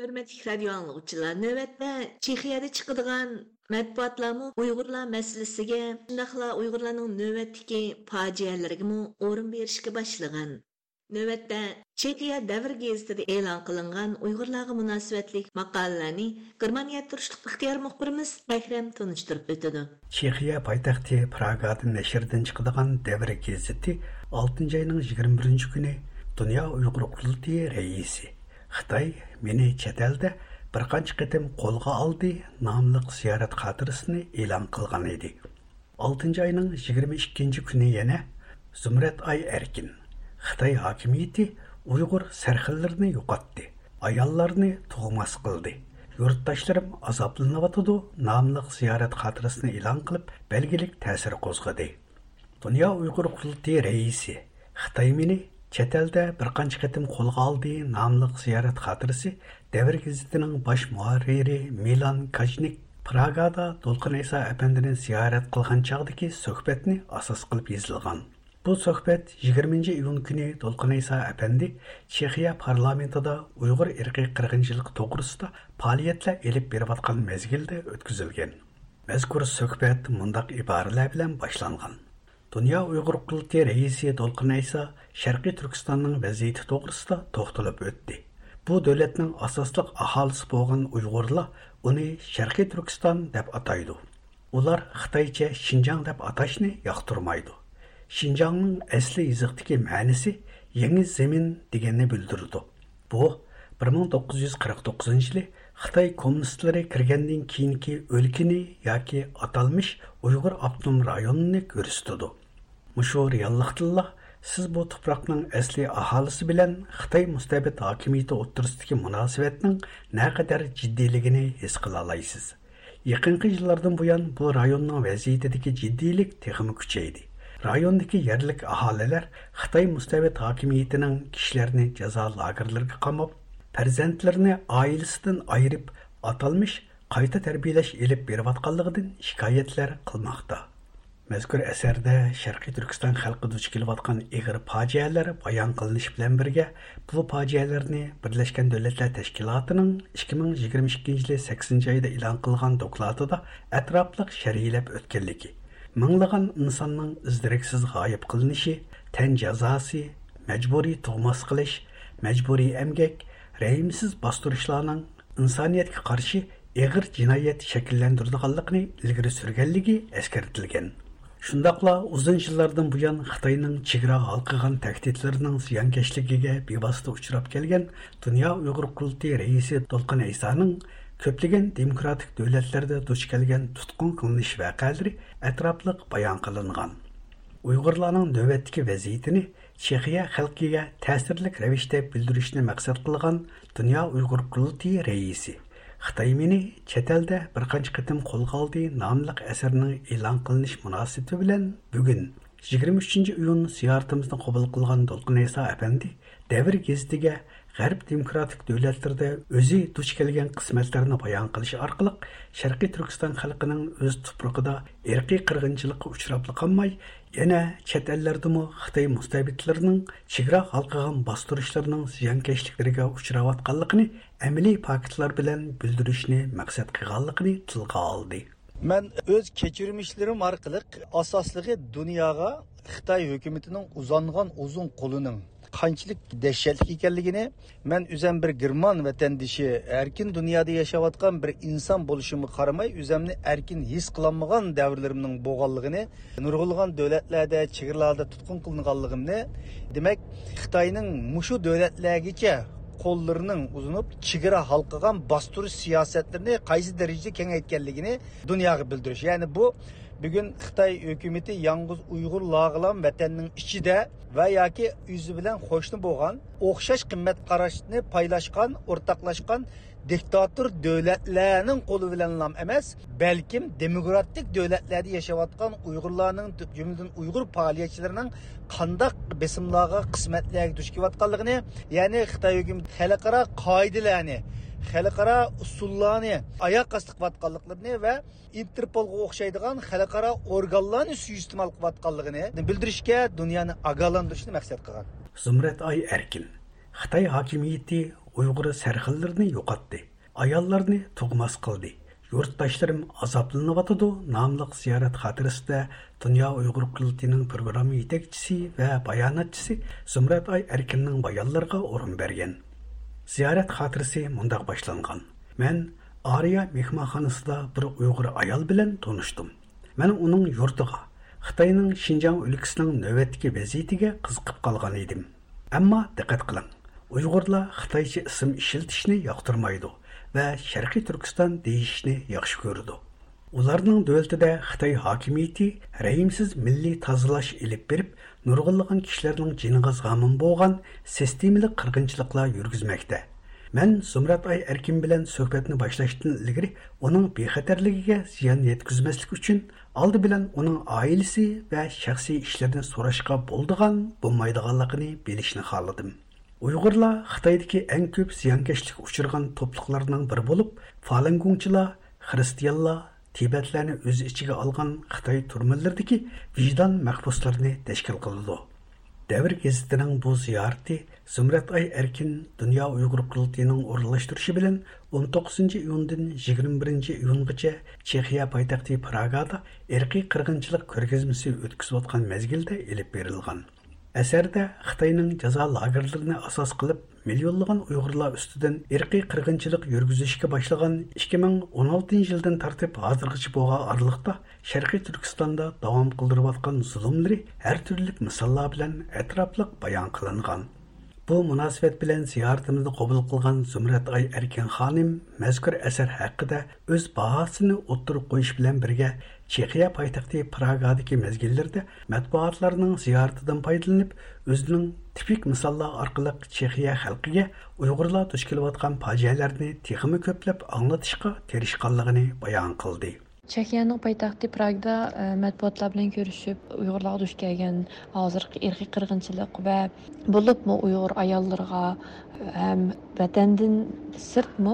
ھۆرمەتلىك رادىيو ئاڭلىغۇچىلار، نۆۋەتتە چېخىيەدە چىقىدىغان مەتبۇئاتلارمۇ ئۇيغۇرلار مەسىلىسىگە، شۇنداقلا ئۇيغۇرلارنىڭ نۆۋەتتىكى پاجىئەلىرىگىمۇ ئورۇن بېرىشكە باشلىغان. نۆۋەتتە چېخىيە دەۋر گېزىتىدە ئېلان قىلىنغان ئۇيغۇرلارغا مۇناسىۋەتلىك ماقالىلەرنى گېرمانىيەدە تۇرۇشلۇق ئىختىيار مۇخبىرىمىز ئەكرەم تونۇشتۇرۇپ ئۆتىدۇ. چېخىيە پايتەختى پراگادا نەشردىن چىقىدىغان دەۋر گېزىتى ئالتىنچى ئاينىڭ يىگىرمە بىرىنچى كۈنى دۇنيا ئۇيغۇر قۇرۇلتىيى رەئىسى «خىتاي مېنى چەت ئەلدە بىر قانچە قېتىم قولغا ئالدى» ناملىق زىيارەت خاتىرىسىنى ئېلان قىلغان ئىدى. ئالتىنچى ئاينىڭ يىگىرمە ئىككىنچى كۈنى يەنە زۇمرەت ئاي ئەركىن: «خىتاي ھاكىمىيىتى ئۇيغۇر سەرخىللىرىنى يوقاتتى، ئاياللارنى تۇغماس قىلدى، يۇرتداشلىرىم ئازابلىنىۋاتىدۇ» ناملىق زىيارەت خاتىرىسىنى ئېلان قىلىپ، بەلگىلىك تەسىر قوزغىدى. دۇنيا ئۇيغۇر قۇرۇلتىيى رەئىسى «خىتاي مېنى چەت ئەلدە بىر قانچە قېتىم قولغا ئالدى» ناملىق زىيارەت خاتىرىسى دەۋر گېزىتىنىڭ باش مۇھەررىرى مىلان كاژنىك پراگادا دولقۇن ئەيسا ئەپەندىنى زىيارەت قىلغان چاغدىكى سۆھبەتنى ئاساس قىلىپ يېزىلغان. بۇ سۆھبەت يىگىرمىنچى ئىيۇن كۈنى دولقۇن ئەيسا ئەپەندى چېخىيە پارلامېنتىدا ئۇيغۇر ئىرقىي قىرغىنچىلىقى توغرىسىدا پائالىيەتلەر ئېلىپ بېرىۋاتقان مەزگىلدە ئۆتكۈزۈلگەن. مەزكۇر سۆھبەت مۇنداق ئىبارىلەر بىلەن باشلانغان: دۇنيا ئۇيغۇر قۇرۇلتىيى رەئىسى دولقۇن ئەيسا شەرقىي تۈركىستاننىڭ ۋەزىيىتى توغرىسىدا توختىلىپ ئۆتتى. بۇ دۆلەتنىڭ ئاساسلىق ئاھالىسى بولغان ئۇيغۇرلار ئۇنى شەرقىي تۈركىستان دەپ ئاتايدۇ. ئۇلار خىتايچە شىنجاڭ دەپ ئاتاشنى ياقتۇرمايدۇ. شىنجاڭنىڭ ئەسلى يېزىقتىكى مەنىسى يېڭى زېمىن دېگەننى بىلدۈرىدۇ. بۇ بىر مىڭ توققۇز يۈز قىرىق توققۇزىنچى يىلى خىتاي كوممۇنىستلىرى كىرگەندىن كېيىنكى ئۆلكىنى ياكى ئاتالمىش ئۇيغۇر ئاپتونوم رايونىنى كۆرسىتىدۇ. مۇشۇ رېئاللىقتىنلا سىز بۇ تۇپراقنىڭ ئەسلى ئاھالىسى بىلەن خىتاي مۇستەبىت ھاكىمىيىتى ئوتتۇرىسىدىكى مۇناسىۋەتنىڭ نەقەدەر جىددىيلىكىنى ھېس قىلالايسىز. يېقىنقى يىللاردىن بۇيان بۇ رايوننىڭ ۋەزىيىتىدىكى جىددىيلىك تېخىمۇ كۈچەيدى. رايوندىكى يەرلىك ئاھالىلەر خىتاي مۇستەبىت ھاكىمىيىتىنىڭ كىشىلەرنى جازا لاگېرلىرىغا قاماپ، پەرزەنتلىرىنى ئائىلىسىدىن ئايرىپ، ئاتالمىش قايتا تەربىيەلەش ئېلىپ بېرىۋاتقانلىقىدىن شىكايەتلەر قىلماقتا. مەزكۇر ئەسەردە شەرقىي تۈركىستان خەلقى دۇچ كېلىۋاتقان ئېغىر پاجىئەلەر بايان قىلىنىش بىلەن بىرگە، بۇ پاجىئەلەرنى بىرلەشكەن دۆلەتلەر تەشكىلاتىنىڭ ئىككى مىڭ يىگىرمە ئىككىنچى يىلى سەككىزىنچى ئايدا ئېلان قىلغان دوكلاتىدا ئەتراپلىق شەرھلەپ ئۆتكەنلىكى، مىڭلىغان ئىنساننىڭ ئىز-دېرەكسىز غايىب قىلىنىشى، تەن جازاسى، مەجبۇرىي تۇغماس قىلىش، مەجبۇرىي ئەمگەك، رەھىمسىز باستۇرۇشلارنىڭ ئىنسانىيەتكە قارشى ئېغىر جىنايەت شەكىللەندۈرىدىغانلىقىنى ئىلگىرى سۈرگەنلىكى ئەسكەرتىلگەن. شۇنداقلا ئۇزۇن يىللاردىن بۇيان خىتاينىڭ چېگرا ھالقىغان تەھدىتلىرىنىڭ زىيانكەشلىكىگە بىۋاسىتە ئۇچراپ كەلگەن دۇنيا ئۇيغۇر قۇرۇلتىيى رەئىسى دولقۇن ئەيسانىڭ كۆپلىگەن دېموكراتىك دۆلەتلەردە دۇچ كەلگەن تۇتقۇن قىلىنىش ۋەقەلىرى ئەتراپلىق بايان قىلىنغان. ئۇيغۇرلارنىڭ نۆۋەتتىكى ۋەزىيىتىنى چېخىيە خەلقىگە تەسىرلىك رەۋىشتە بىلدۈرۈشنى مەقسەت قىلغان دۇنيا ئۇيغۇر قۇرۇلتىيى رەئىسى خىتاي مېنى چەت ئەلدە بىر قانچە قېتىم قولغا ئالدى ناملىق ئەسەرنىڭ ئېلان قىلىنىش مۇناسىۋىتى بىلەن بۈگۈن، يىگىرمە ئۈچىنچى ئىيۇن، زىيارىتىمىزنى قوبۇل قىلغان دولقۇن ئەيسا ئەپەندى دەۋر گېزىتىگە غەرب دېموكراتىك دۆلەتلىرىدە ئۆزى دۇچ كەلگەن قىسمەتلەرنى بايان قىلىش ئارقىلىق، شەرقىي تۈركىستان خەلقىنىڭ ئۆز تۇپرىقىدا ئىرقىي قىرغىنچىلىققا ئۇچراپلا قالماي، يەنە چەت ئەللەردىمۇ خىتاي مۇستەبىتلىرىنىڭ چېگرا ھالقىغان باستۇرۇشلىرىنىڭ زىيانكەشلىكلىرىگە ئۇچراۋاتقانلىقىنى ئەمەلىي پاكىتلار بىلەن بىلدۈرۈشنى مەقسەت قىلغانلىقىنى تىلغا ئالدى. مەن ئۆز كەچۈرمىشلىرىم ئارقىلىق ئاساسلىقى دۇنياغا خىتاي ھۆكۈمىتىنىڭ ئۇزانغان ئۇزۇن قولىنىڭ قانچىلىك دەھشەتلىك ئىكەنلىكىنى، مەن ئۆزەم بىر گېرمان ۋەتەندىشى، ئەركىن دۇنيادا ياشاۋاتقان بىر ئىنسان بولۇشۇمغا قارىماي، ئۆزەمنى ئەركىن ھېس قىلالمىغان دەۋرلىرىمنىڭ بولغانلىقىنى، نۇرغۇنلىغان دۆلەتلەردە، چېگرىلاردا تۇتقۇن قىلىنغانلىقىمنى، دېمەك، خىتاينىڭ مۇشۇ دۆلەتلەرگىچە قوللىرىنىڭ ئۇزىنىپ، چېگرا ھالقىغان باستۇرۇش سىياسەتلىرىنى قايسى دەرىجىدە كېڭەيتكەنلىكىنى دۇنياغا بىلدۈرۈش. يەنى بۇ بۈگۈن خىتاي ھۆكۈمىتى يالغۇز ئۇيغۇرلارغىلا ۋەتەننىڭ ئىچىدە ۋە ياكى ئۆزى بىلەن قوشنا بولغان ئوخشاش قىممەت قاراشنى پايلاشقان، ئورتاقلاشقان دىكتاتور دۆلەتلەرنىڭ قولى بىلەنلا ئەمەس، بەلكىم دېموكراتىك دۆلەتلەردە ياشاۋاتقان ئۇيغۇرلارنىڭ، جۈملىدىن ئۇيغۇر پائالىيەتچىلىرىنىڭ قانداق بېسىملارغا، قىسمەتلەرگە دۇچ كېلىۋاتقانلىقىنى، يەنى خىتاي ھۆكۈمىتى خەلقئارا قائىدىلەرنى، خەلقئارا ئۇسۇللارنى ئاياغ ئاستى قىلىۋاتقانلىقلىرىنى ۋە ئىنتېرپولغا ئوخشايدىغان خەلقئارا ئورگانلارنى سۇيىئىستېمال قىلىۋاتقانلىقىنى بىلدۈرۈشكە، دۇنيانى ئاگاھلاندۇرۇشنى مەقسەت قىلغان. زۇمرەت ئاي ئەركىن، خىتاي ھاكىمىيىتى ئۇيغۇر سەرخىللىرىنى يوقاتتى، ئاياللارنى تۇغماس قىلدى، يۇرتداشلىرىم ئازابلىنىۋاتىدۇ ناملىق زىيارەت خاتىرىسىدە دۇنيا ئۇيغۇر قۇرۇلتىيىنىڭ پروگرامما يېتەكچىسى ۋە باياناتچىسى زۇمرەت ئاي ئەركىننىڭ بايانلىرىغا ئورۇن بەرگەن. زىيارەت خاتىرىسى مۇنداق باشلانغان: مەن ئارىيا مېھمانخانىسىدا بىر ئۇيغۇر ئايال بىلەن تونۇشتۇم. مەن ئۇنىڭ يۇرتىغا، خىتاينىڭ شىنجاڭ ئۆلكىسىنىڭ نۆۋەتتىكى ۋەزىيىتىگە قىزىقىپ قالغان ئىدىم. ئەمما دىققەت قىلىڭ، ئۇيغۇرلار خىتايچە ئىسىم ئىشلىتىشنى ياقتۇرمايدۇ ۋە شەرقىي تۈركىستان دېيىشنى ياخشى كۆرىدۇ. ئۇلارنىڭ دۆلىتىدە خىتاي ھاكىمىيىتى رەھىمسىز مىللىي تازىلاش ئېلىپ بېرىپ، نۇرغۇنلىغان كىشىلەرنىڭ جېنىغا زامىن بولغان سىستېمىلىق قىرغىنچىلىقلار يۈرگۈزمەكتە. مەن زۇمرەت ئاي ئەركىن بىلەن سۆھبەتنى باشلاشتىن ئىلگىرى ئۇنىڭ بىخەتەرلىكىگە زىيان يەتكۈزمەسلىك ئۈچۈن، ئالدى بىلەن ئۇنىڭ ئائىلىسى ۋە شەخسىي ئىشلىرىنى سوراشقا بولىدىغان، بولمايدىغانلىقىنى بىلىشنى خالىدىم. ئۇيغۇرلار خىتايدىكى ئەڭ كۆپ زىيانكەشلىككە ئۇچرىغان توپلۇقلارنىڭ بىرى بولۇپ، فالۇنگوڭچىلار، خىرىستىيانلار، تىبەتلەرنى ئۆز ئىچىگە ئالغان خىتاي تۈرمىلىرىدىكى ۋىجدان مەھبۇسلىرىنى تەشكىل قىلىدۇ. دەۋر گېزىتىنىڭ بۇ زىيارىتى زۇمرەت ئاي ئەركىن دۇنيا ئۇيغۇر قۇرۇلتىيىنىڭ ئورۇنلاشتۇرۇشى بىلەن ئون توققۇزىنچى ئىيۇندىن يىگىرمە بىرىنچى ئىيۇنغىچە چېخىيە پايتەختى پراگادا ئىرقىي قىرغىنچىلىق كۆرگەزمىسى ئۆتكۈزۈۋاتقان مەزگىلدە ئېلىپ بېرىلغان. ئەسەردە خىتاينىڭ جازا لاگېرلىرىنى ئاساس قىلىپ، مىليونلىغان ئۇيغۇرلار ئۈستىدىن ئىرقىي قىرغىنچىلىق يۈرگۈزۈشكە باشلىغان ئىككى مىڭ ئون ئالتىنچى يىلدىن تارتىپ ھازىرغىچە بولغان ئارىلىقتا، شەرقىي تۈركىستاندا داۋام قىلدۇرۇۋاتقان زۇلۇملىرى ھەر تۈرلۈك مىساللار بىلەن ئەتراپلىق بايان قىلىنغان. بۇ مۇناسىۋەت بىلەن زىيارىتىمىزنى قوبۇل قىلغان زۇمرەت ئاي ئەركىن خانىم مەزكۇر ئەسەر ھەققىدە ئۆز باھاسىنى ئوتتۇرىغا قويۇش بىلەن بىرگە، چېخىيە پايتەختى پراگادىكى مەزگىللىرىدە مەتبۇئاتلارنىڭ زىيارىتىدىن پايدىلىنىپ، ئۆزىنىڭ تىپىك مىساللار ئارقىلىق چېخىيە خەلقىگە ئۇيغۇرلار دۇچ كېلىۋاتقان پاجىئەلەرنى تېخىمۇ كۆپلەپ ئاڭلىتىشقا تىرىشقانلىقىنى بايان قىلدى. چېخىيەنىڭ پايتەختى پراگدا، ئە، مەتبۇئاتلار بىلەن كۆرۈشۈپ، ئۇيغۇرلارغا دۇچ كەلگەن ھازىرقى ئىرقىي قىرغىنچىلىق ۋە بولۇپمۇ ئۇيغۇر ئاياللىرىغا ھەم ۋەتەندىن سىرتمۇ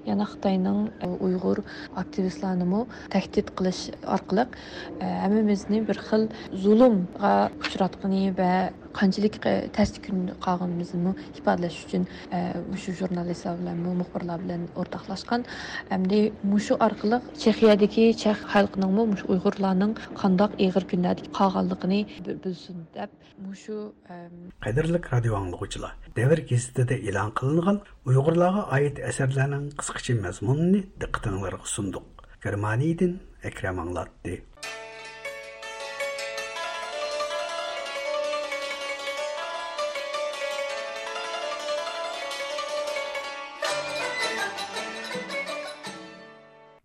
يەنە خىتاينىڭ، ئە، ئۇيغۇر ئاكتىۋىستلارنىمۇ تەھدىت قىلىش ئارقىلىق، ئە، ھەممىمىزنى بىر خىل زۇلۇمغا ئۇچراتقىنى ۋە قانچىلىك، ئە، تەستە كۈندە قالغىنىمىزنىمۇ ئىپادىلەش ئۈچۈن، ئە، مۇشۇ ژۇرنالىستلار بىلەنمۇ، مۇخبىرلار بىلەن ئورتاقلاشقان. ئەمدى مۇشۇ ئارقىلىق چېخىيەدىكى چەخ خەلقىنىڭمۇ مۇشۇ ئۇيغۇرلارنىڭ قانداق ئېغىر كۈنلەردە قالغانلىقىنى بىل-، بىلسۇن دەپ، مۇشۇ، ئەم، قەدىرلىك رادىيو ئاڭلىغۇچىلار، دەۋر گېزىتىدە ئېلان قىلىنغان ئۇيغۇرلارغا ئائىت ئەسەرلەرنىڭ قىسقىچە مەزمۇنىنى دىققىتىڭلارغا سۇندۇق. گېرمانىيەدىن ئەكرەم ئاڭلاتتى.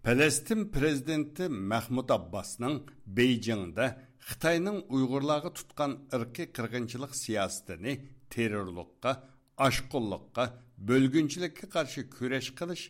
پەلەستىن پىرېزىدېنتى مەھمۇد ئابباسنىڭ بېيجىڭدا خىتاينىڭ ئۇيغۇرلارغا تۇتقان ئىرقىي قىرغىنچىلىق سىياسىتىنى تېررورلۇققا، ئاشقۇنلۇققا، بۆلگۈنچىلىككە قارشى كۈرەش قىلىش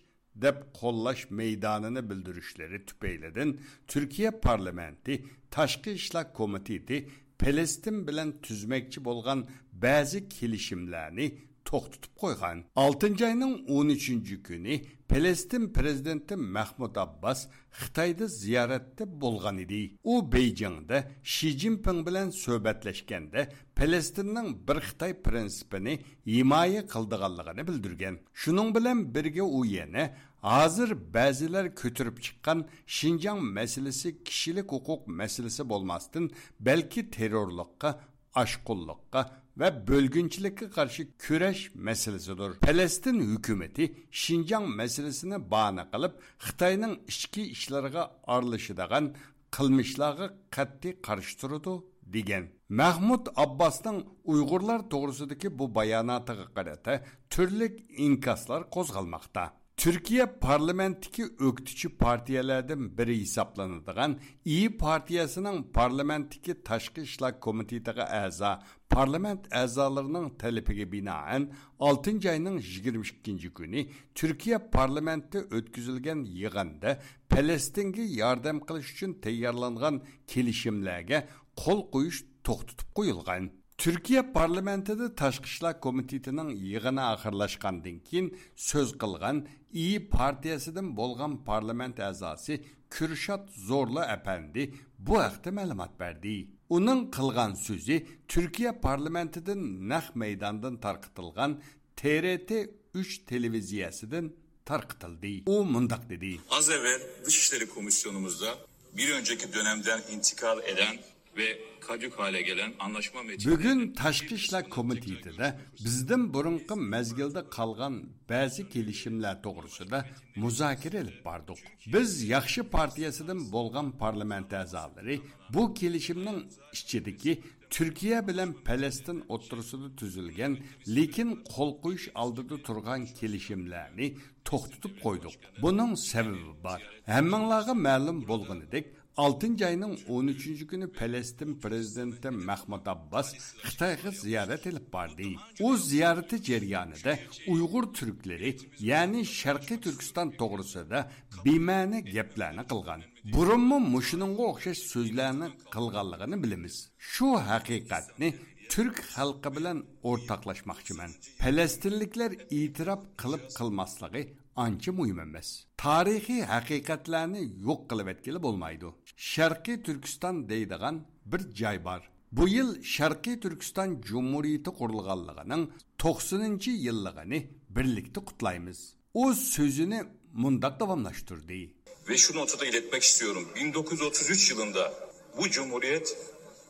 دەپ قوللاش مەيدانىنى بىلدۈرۈشلىرى تۈپەيلىدىن، تۈركىيە پارلامېنتى تاشقى ئىشلار كومىتېتى پەلەستىن بىلەن تۈزمەكچى بولغان بەزى كېلىشىملەرنى توختىتىپ قويغان. ئالتىنچى ئاينىڭ ئون ئۈچىنچى كۈنى پەلەستىن پىرېزىدېنتى مەھمۇد ئابباس خىتايدا زىيارەتتە بولغان ئىدى. ئۇ بېيجىڭدا شى جىنپىڭ بىلەن سۆھبەتلەشكەندە، پەلەستىننىڭ بىر خىتاي پىرىنسىپىنى ھىمايە قىلىدىغانلىقىنى بىلدۈرگەن. شۇنىڭ بىلەن بىرگە، ئۇ يەنە ھازىر بەزىلەر كۆتۈرۈپ چىققان شىنجاڭ مەسىلىسى كىشىلىك ھوقۇق مەسىلىسى بولماستىن، بەلكى تېررورلۇققا، ئاشقۇنلۇققا ۋە بۆلگۈنچىلىككە قارشى كۈرەش مەسىلىسىدۇر. پەلەستىن ھۆكۈمىتى شىنجاڭ مەسىلىسىنى باھانە قىلىپ، خىتاينىڭ ئىچكى ئىشلىرىغا ئارىلىشىدىغان قىلمىشلارغا قەتئىي قارشى تۇرىدۇ، دېگەن. مەھمۇد ئابباسنىڭ ئۇيغۇرلار توغرىسىدىكى بۇ باياناتىغا قارىتا تۈرلۈك ئىنكاسلار قوزغالماقتا. تۈركىيە پارلامېنتتىكى ئۆكتىچى پارتىيەلەردىن بىرى ھېسابلىنىدىغان ئىيى پارتىيەسىنىڭ پارلامېنتتىكى تاشقى ئىشلار كومىتېتىغا ئەزا پارلامېنت ئەزالىرىنىڭ تەلىپىگە بىنائەن، ئالتىنچى ئاينىڭ يىگىرمە ئىككىنچى كۈنى تۈركىيە پارلامېنتىدا ئۆتكۈزۈلگەن يىغىندا پەلەستىنگە ياردەم قىلىش ئۈچۈن تەييارلانغان كېلىشىملەرگە قول قويۇش توختىتىپ قويۇلغان. تۈركىيە پارلامېنتىدا تاشقى ئىشلار كومىتېتىنىڭ يىغىنى ئاخىرلاشقاندىن كېيىن سۆز قىلغان ئىيى پارتىيەسىدىن بولغان پارلامېنت ئەزاسى كۈرشات زورلۇ ئەپەندى بۇ ھەقتە مەلۇمات بەردى. ئۇنىڭ قىلغان سۆزى تۈركىيە پارلامېنتىدىن نەق مەيداندىن تارقىتىلغان تې رې تې ئۈچ تېلېۋىزىيەسىدىن تارقىتىلدى. ئۇ مۇنداق دېدى. Az evvel Dışişleri Komisyonumuzda bir önceki dönemden intikal eden ve kadük hale gelen anlaşma metnini بۈگۈن تاشقى ئىشلار كومىتېتىدا بىزدىن بۇرۇنقى مەزگىلدە قالغان بەزى كېلىشىملەر توغرىسىدا مۇزاكىرە ئېلىپ باردۇق. بىز ياخشى پارتىيەسىدىن بولغان پارلامېنت ئەزالىرى بۇ كېلىشىمنىڭ ئىچىدىكى تۈركىيە بىلەن پەلەستىن ئوتتۇرىسىدا تۈزۈلگەن، لېكىن قول قويۇش ئالدىدا تۇرغان كېلىشىملەرنى توختىتىپ قويدۇق. بۇنىڭ سەۋەبى بار. ھەممىڭلارغا مەلۇم بولغىنىدەك، ئالتىنچى ئاينىڭ ئون ئۈچىنچى كۈنى پەلەستىن پىرېزىدېنتى مەھمۇد ئابباس خىتايغا زىيارەت ئېلىپ باردى. ئۇ زىيارىتى جەريانىدا ئۇيغۇر تۈركلىرى، يەنى شەرقىي تۈركىستان توغرىسىدا بىمەنە گەپلەرنى قىلغان. بۇرۇنمۇ مۇشۇنىڭغا ئوخشاش سۆزلەرنى قىلغانلىقىنى بىلىمىز. شۇ ھەقىقەتنى تۈرك خەلقى بىلەن ئورتاقلاشماقچىمەن. پەلەستىنلىكلەر ئېتىراپ قىلىپ قىلماسلىقى ئانچە مۇھىم ئەمەس. تارىخىي ھەقىقەتلەرنى يوق قىلىۋەتكىلى بولمايدۇ. شەرقىي تۈركىستان دەيدىغان بىر جاي بار. بۇ يىل شەرقىي تۈركىستان جۇمھۇرىيىتى قۇرۇلغانلىقىنىڭ توقسىنىنچى يىللىقىنى بىرلىكتە قۇتلايمىز. ئۇ سۆزىنى مۇنداق داۋاملاشتۇردى. Ve şu notu da iletmek istiyorum. bin dokuz yüz otuz üç yılında bu cumhuriyet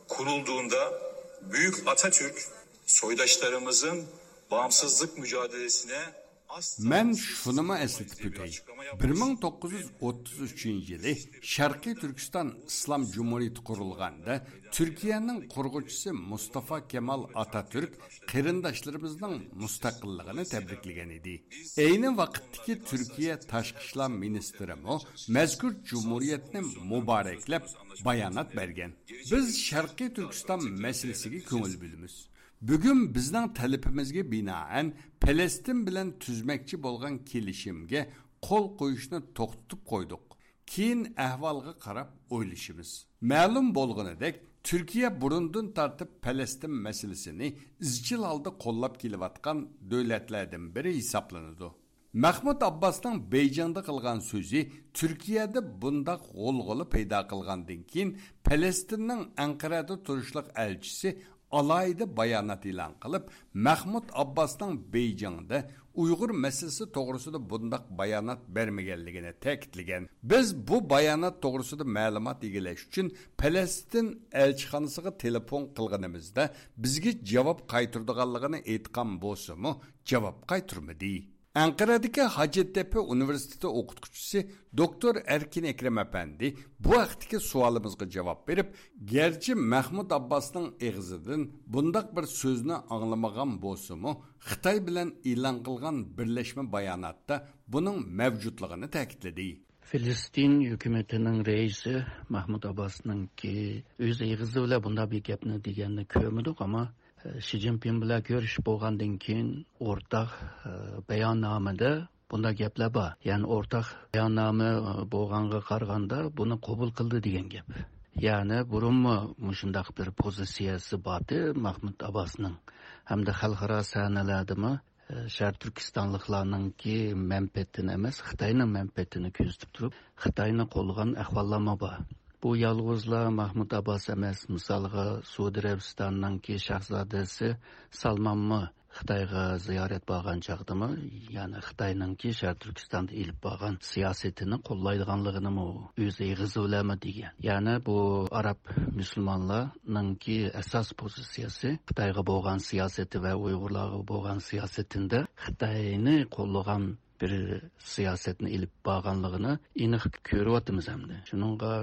kurulduğunda Büyük Atatürk soydaşlarımızın bağımsızlık mücadelesine asla مەن شۇنىمۇ ئەسلىتىپ ئۆتەي. بىر مىڭ توققۇز يۈز ئوتتۇز ئۈچىنچى يىلى شەرقىي تۈركىستان ئىسلام جۇمھۇرىيىتى قۇرۇلغاندا، تۈركىيەنىڭ قۇرغۇچىسى مۇستافا كېمال ئاتاتۈرك قېرىنداشلىرىمىزنىڭ مۇستەقىللىقىنى تەبرىكلىگەن ئىدى. ئەينى ۋاقىتتىكى تۈركىيە تاشقى ئىشلار مىنىستىرىمۇ مەزكۇر جۇمھۇرىيەتنى مۇبارەكلەپ بايانات بەرگەن. بىز شەرقىي تۈركىستان مەسىلىسىگە كۆڭۈل بۆلىمىز. بۈگۈن بىزنىڭ تەلىپىمىزگە بىنائەن پەلەستىن بىلەن تۈزمەكچى بولغان كېلىشىمگە قول قويۇشنى توختىتىپ قويدۇق. كېيىن ئەھۋالغا قاراپ ئويلىشىمىز. مەلۇم بولغىنىدەك، تۈركىيە بۇرۇندىن تارتىپ پەلەستىن مەسىلىسىنى ئىزچىل ھالدا قوللاپ كېلىۋاتقان دۆلەتلەردىن بىرى ھېسابلىنىدۇ. مەھمۇد ئابباسنىڭ بېيجىڭدا قىلغان سۆزى تۈركىيەدە بۇنداق غۇلغۇلا پەيدا قىلغاندىن كېيىن، پەلەستىننىڭ ئەنقەرەدە تۇرۇشلۇق ئەلچىسى ئالاھىدە بايانات ئېلان قىلىپ، مەھمۇد ئابباسنىڭ بېيجىڭدا ئۇيغۇر مەسىلىسى توغرىسىدا بۇنداق بايانات بەرمىگەنلىكىنى تەكىتلىگەن. بىز بۇ بايانات توغرىسىدا مەلۇمات ئىگىلەش ئۈچۈن پەلەستىن ئەلچىخانىسىغا تېلېفون قىلغىنىمىزدا، بىزگە جاۋاب قايتۇرىدىغانلىقىنى ئېيتقان بولسىمۇ، جاۋاب قايتۇرمىدى. ئەنقەرەدىكى ھاجەتتەپە ئۇنىۋېرسىتېتى ئوقۇتقۇچىسى دوكتور ئەركىن ئەكرەم ئەپەندى بۇ ھەقتىكى سوئالىمىزغا جاۋاب بېرىپ، گەرچە مەھمۇد ئابباسنىڭ ئېغىزىدىن بۇنداق بىر سۆزنى ئاڭلىمىغان بولسىمۇ، خىتاي بىلەن ئېلان قىلغان بىرلەشمە باياناتتا بۇنىڭ مەۋجۇتلۇقىنى تەكىتلىدى. فىلىستىن ھۆكۈمىتىنىڭ رەئىسى مەھمۇد ئابباسنىڭكى ئۆز ئېغىزى بىلەن بۇنداق بىر گەپنى دېگەننى كۆرمىدۇق، ئەمما شى جىنپىڭ بىلەن كۆرۈشۈپ بولغاندىن كېيىن ئورتاق، ئە، باياننامىدە بۇنداق گەپلەر بار. يەنى ئورتاق باياننامە، ئە، بولغانغا قارىغاندا بۇنى قوبۇل قىلدى دېگەن گەپ. يەنى بۇرۇنمۇ مۇشۇنداق بىر پوزىتسىيەسى بارتى مەھمۇد ئابباسنىڭ. ھەمدە خەلقئارا سەھنىلەردىمۇ، ئە، شەرقىي تۈركىستانلىقلارنىڭكى مەنپەئەتىنى ئەمەس، خىتاينىڭ مەنپەئەتىنى كۆزىتىپ تۇرۇپ، خىتاينى قوللىغان ئەھۋاللارمۇ بار. بۇ يالغۇزلا مەھمۇد ئابباس ئەمەس، مىسالغا، سەئۇدى ئەرەبىستاننىڭكى شاھزادىسى سالمانمۇ خىتايغا زىيارەت بارغان چاغدىمۇ، يەنى خىتاينىڭكى شەرقىي تۈركىستاندا ئېلىپ بارغان سىياسىتىنى قوللايدىغانلىقىنىمۇ ئۆز ئېغىزى بىلەنمۇ دېگەن. يەنى بۇ ئاراب مۇسۇلمانلارنىڭكى ئاساس پوزىتسىيەسى خىتايغا بولغان سىياسىتى ۋە ئۇيغۇرلارغا بولغان سىياسىتىدە خىتاينى قوللىغان بىر سىياسەتنى ئېلىپ بارغانلىقىنى ئېنىق كۆرۈۋاتىمىز ئەمدى. شۇنىڭغا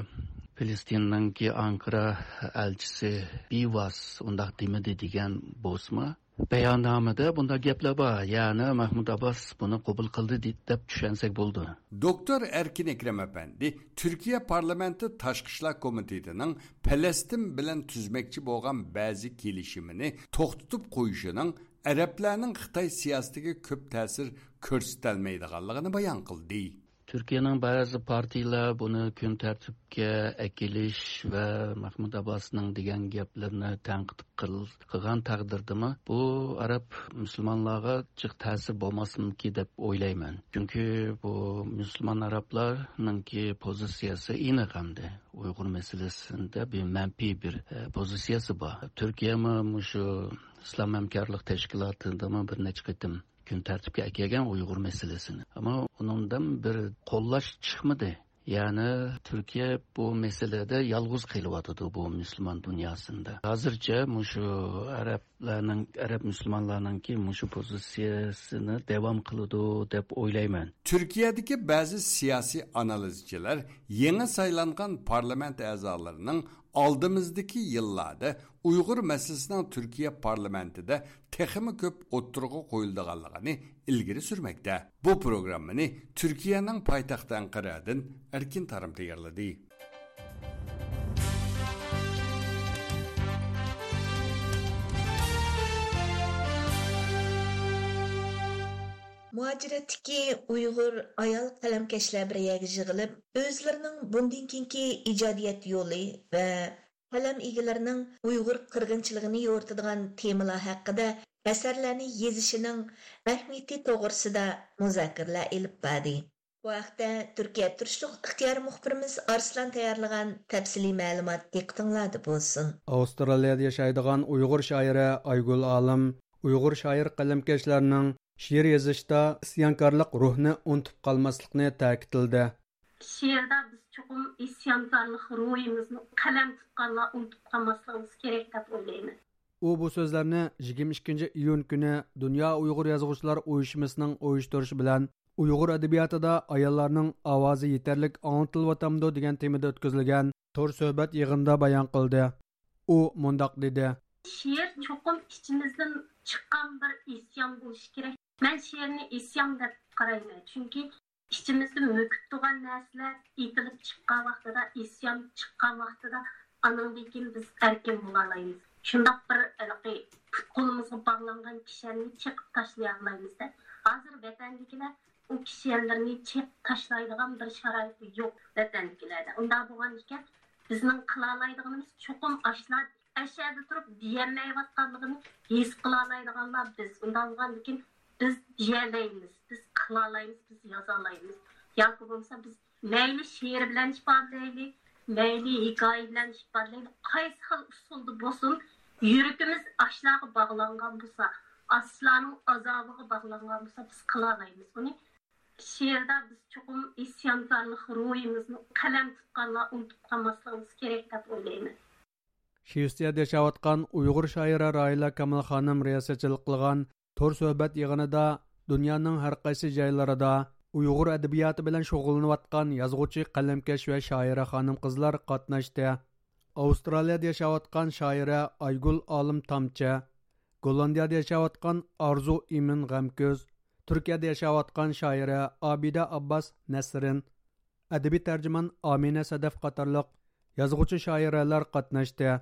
فىلىستىننىڭكى ئانقارا ئەلچىسى بىۋاس ئۇنداق دېمىدى دېگەن بولسىمۇ، بەياننامىدە بۇنداق گەپلەر بار، يەنى مەھمۇد ئابباس بۇنى قوبۇل قىلدى دې-، دەپ چۈشەنسەك بولىدۇ. دوكتور ئەركىن ئەكرەم ئەپەندى تۈركىيە پارلامېنتى تاشقى ئىشلار كومىتېتىنىڭ پەلەستىن بىلەن تۈزمەكچى بولغان بەزى كېلىشىمىنى توختىتىپ قويۇشىنىڭ ئەرەبلەرنىڭ خىتاي سىياسىتىگە كۆپ تەسىر كۆرسىتەلمەيدىغانلىقىنى بايان قىلدى. تۈركىيەنىڭ بەزى پارتىيىلەر بۇنى كۈن تەرتىپكە ئەكېلىش ۋە مەھمۇد ئابباسنىڭ دېگەن گەپلىرىنى تەنقىد قىل-، قىلغان تەقدىردىمۇ، بۇ ئەرەب مۇسۇلمانلارغا جىق تەسىر بولماسمىكى دەپ ئويلايمەن. چۈنكى بۇ مۇسۇلمان ئەرەبلەرنىڭكى پوزىتسىيەسى ئېنىق ئەمدى. ئۇيغۇر مەسىلىسىدە بىر مەنپىي بىر، ئە، پوزىتسىيەسى بار. تۈركىيەمۇ مۇشۇ ئىسلام ھەمكارلىق تەشكىلاتىدىمۇ بىر نەچچە قېتىم كۈن تەرتىپكە ئەكەلگەن ئۇيغۇر مەسىلىسىنى. ئەمما ئۇنىڭدىن بىر قوللاش چىقمىدى. يەنى تۈركىيە بۇ مەسىلىدە يالغۇز قېلىۋاتىدۇ بۇ مۇسۇلمان دۇنياسىندا. ھازىرچە مۇشۇ ئەرەبلەرنىڭ، ئەرەب مۇسۇلمانلارنىڭكى مۇشۇ پوزىتسىيەسىنى داۋام قىلىدۇ دەپ ئويلايمەن. تۈركىيەدىكى بەزى سىياسىي ئانالىزچىلار يېڭى سايلانغان پارلامېنت ئەزالىرىنىڭ ئالدىمىزدىكى يىللاردا ئۇيغۇر مەسىلىسىنىڭ تۈركىيە پارلامېنتىدا تېخىمۇ كۆپ ئوتتۇرىغا قويۇلىدىغانلىقىنى ئىلگىرى سۈرمەكتە. بۇ پروگراممىنى تۈركىيەنىڭ پايتەختى ئەنقەرەدىن ئەركىن تارىم تەييارلىدى. مۇھاجىرەتتىكى ئۇيغۇر ئايال قەلەمكەشلەر بىر يەرگە يىغىلىپ، ئۆزلىرىنىڭ بۇندىن كېيىنكى ئىجادىيەت يولى ۋە قەلەم ئىگىلىرىنىڭ ئۇيغۇر قىرغىنچىلىقىنى يورۇتىدىغان تېمىلار ھەققىدە ئەسەرلەرنى يېزىشىنىڭ ئەھمىيىتى توغرىسىدا مۇزاكىرىلەر ئېلىپ باردى. بۇ ھەقتە تۈركىيە تۇرۇشلۇق ئىختىيارىي مۇخبىرىمىز ئارسلان تەييارلىغان تەپسىلىي مەلۇمات دىققىتىڭلاردا بولسۇن. ئاۋسترالىيەدە ياشايدىغان ئۇيغۇر شائىرە ئايگۈل ئالىم ئۇيغۇر شائىر قەلەمكەشلەرنىڭ شېئىر يېزىشتا ئىسيانكارلىق روھنى ئۇنتۇپ قالماسلىقنى تەكىتلىدى. شېئىردا بىز چوقۇم ئىسيانكارلىق روھىمىزنى، قەلەم تۇتقانلار ئۇنتۇپ قالماسلىقىمىز كېرەك دەپ ئويلايمەن. ئۇ بۇ سۆزلەرنى يىگىرمە ئىككىنچى ئىيۇن كۈنى دۇنيا ئۇيغۇر يازغۇچىلار ئۇيۇشمىسىنىڭ ئۇيۇشتۇرۇشى بىلەن ئۇيغۇر ئەدەبىياتىدا ئاياللارنىڭ ئاۋازى يېتەرلىك ئاڭلىتىلىۋاتامدۇ دېگەن تېمىدا ئۆتكۈزۈلگەن تور سۆھبەت يىغىنىدا بايان قىلدى. ئۇ مۇنداق دېدى. شېئىر چوقۇم ئىچىمىزدىن چىققان بىر ئىسيان بولۇشى كېرەك. مەن شېئىرنى ئىسيان دەپ قارايمەن، چۈنكى ئىچىمىزدە مۆكۈپ تۇرغان نەرسىلەر ئېتىلىپ چىققان ۋاقتىدا، ئىسيان چىققان ۋاقتىدا، ئانىڭدىن كېيىن بىز ئەركىن بولالايمىز. شۇنداق بىر ھېلىقى پۇت-قولىمىزغا باغلانغان كىشەننى چېقىپ تاشلىيالايمىز-دە. ھازىر ۋەتەندىكىلەر ئۇ كىشەنلىرىنى چېقىپ تاشلايدىغان بىر شارائىتى يوق ۋەتەندىكىلەردە. ئۇنداق بولغان ئىكەن، بىزنىڭ قىلالايدىغىنىمىز چوقۇم ئاشۇلا ئەشەدە تۇرۇپ دېيەلمەيۋاتقانلىقىنى ھېس قىلالايدىغانلار بىز. ئۇنداق بولغاندىكىن بىز دېيەلەيمىز، بىز قىلالايمىز، بىز يازالايمىز. ياكى بولمىسا بىز مەيلى شېئىر بىلەن ئىپادىلەيلى، مەيلى ھېكايە بىلەن ئىپادىلەيلى، قايسى خىل ئۇسۇلدا بولسۇن، يۈرىكىمىز ئاشۇلارغا باغلانغان بولسا، ئاشۇلارنىڭ ئازابىغا باغلانغان بولسا، بىز قىلالايمىز ئۇنى. شېئىردا بىز چوقۇم ئىسيانكارلىق روھىمىزنى قەلەم تۇتقانلار ئۇنتۇپ قالماسلىقىمىز كېرەك دەپ ئويلايمەن. شىۋېتسىيەدە ياشاۋاتقان ئۇيغۇر شائىرە راھىلە كامال خانىم رىياسەتچىلىك قىلغان تور سۆھبەت يىغىنىدا دۇنيانىڭ ھەر قايسى جايلىرىدا ئۇيغۇر ئەدەبىياتى بىلەن شۇغۇللىنىۋاتقان يازغۇچى، قەلەمكەش ۋە شائىرە خانىم-قىزلار قاتناشتى. ئاۋسترالىيەدە ياشاۋاتقان شائىرە ئايگۈل ئالىم تامچە، گوللاندىيەدە ياشاۋاتقان ئارزۇ ئىمىن غەمكۆز، تۈركىيەدە ياشاۋاتقان شائىرە ئابىدە ئابباس نەسرىن، ئەدەبىي تەرجىمان ئامىنە سەدەف قاتارلىق يازغۇچى شائىرەلەر قاتناشتى.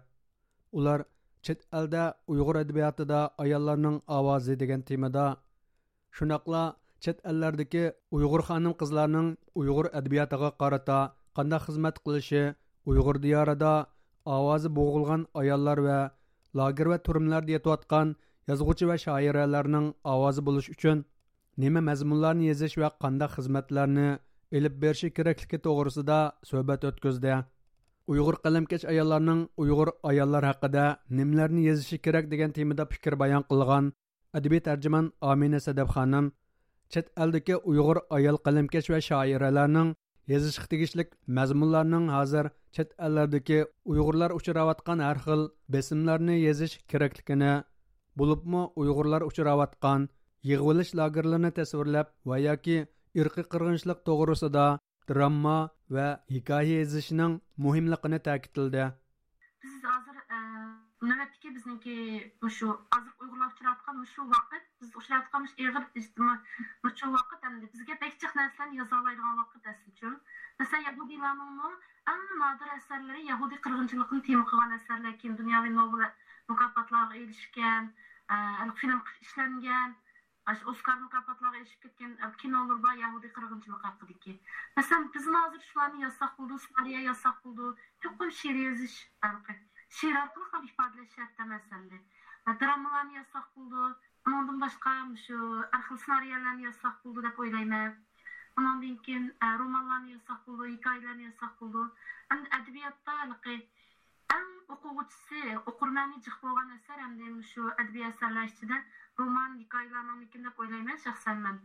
ئۇلار چەت ئەلدە ئۇيغۇر ئەدەبىياتىدا ئاياللارنىڭ ئاۋازى دېگەن تېمىدا، شۇنداقلا چەت ئەللەردىكى ئۇيغۇر خانىم-قىزلارنىڭ ئۇيغۇر ئەدەبىياتىغا قارىتا قانداق خىزمەت قىلىشى، ئۇيغۇر دىيارىدا ئاۋازى بوغۇلغان ئاياللار ۋە لاگېر ۋە تۈرمىلەردە يېتىۋاتقان يازغۇچى ۋە شائىرەلەرنىڭ ئاۋازى بولۇش ئۈچۈن نېمە مەزمۇنلارنى يېزىش ۋە قانداق خىزمەتلەرنى ئېلىپ بېرىشى كېرەكلىكى توغرىسىدا سۆھبەت ئۆتكۈزدى. ئۇيغۇر قەلەمكەش ئاياللارنىڭ ئۇيغۇر ئاياللار ھەققىدە نېمىلەرنى يېزىشى كېرەك دېگەن تېمىدا پىكىر بايان قىلغان ئەدەبىي تەرجىمان ئامىنە سەدەپ خانىم چەت ئەلدىكى ئۇيغۇر ئايال قەلەمكەش ۋە شائىرەلەرنىڭ يېزىشقا تېگىشلىك مەزمۇنلارنىڭ ھازىر چەت ئەللەردىكى ئۇيغۇرلار ئۇچراۋاتقان ھەر خىل بېسىملارنى يېزىش كېرەكلىكىنى، بولۇپمۇ ئۇيغۇرلار ئۇچراۋاتقان يىغىۋېلىش لاگېرلىرىنى تەسۋىرلەپ ۋە ياكى ئىرقىي قىرغىنچىلىق توغرىسىدا درامما ۋە ھېكايە يېزىشنىڭ مۇھىملىقىنى تەكىتلىدى. بىز ھازىر، ئە، نۆۋەتتىكى بىزنىڭكى مۇشۇ ھازىرقى ئۇيغۇرلار ئۇچراۋاتقان مۇشۇ ۋاقىت، بىز ئۇچراۋاتقان مۇشۇ ئېغىر ئىجتىمائىي، مۇشۇ ۋاقىت ئەمدى بىزگە بەك جىق نەرسىلەرنى يازالايدىغان ۋاقىت ئەسلىچۇ. مەسىلەن، يەھۇدىيلارنىڭمۇ ئەڭ نادىر ئەسەرلىرى يەھۇدىي قىرغىنچىلىقىنى تېما قىلغان ئەسەرلەر، كېيىن دۇنياۋى نوبېل مۇكاپاتلارغا ئېرىشكەن، ئە، فىلىم ئىشلەنگەن، ئاشۇ ئوسكار مۇكاپاتلارغا ئېرىشىپ كەتكەن، ئە، كىنولىرى بار يەھۇدىي قىرغىنچىلىقى ھەققىدىكى. مەسىلەن، بىزمۇ ھازىر شۇلارنى يازساق بولىدۇ، سېنارىيە يازساق بولىدۇ، چوقۇم شېئىر يېزىش، ھېلىقى شېئىر ئارقىلىق ھەم ئىپادىلەش شەرت ئەمەس ئەمدى. ئە، دراممىلارنى يازساق بولىدۇ، ئۇنىڭدىن باشقا مۇشۇ ھەر خىل سېنارىيەلەرنى يازساق بولىدۇ دەپ ئويلايمەن. ئۇنىڭدىن كېيىن، ئە، رومانلارنى يازساق بولىدۇ، ھېكايىلەرنى يازساق بولىدۇ. ئەمدى ئەدەبىياتتا ھېلىقى ئەڭ ئوقۇغۇچىسى، ئوقۇرمەنى جىق بولغان ئەسەر ئەمدى مۇشۇ ئەدەبىي ئەسەرلەر ئىچىدە رومان، ھېكايىلەرنىڭكىن دەپ ئويلايمەن شەخسەن مەن.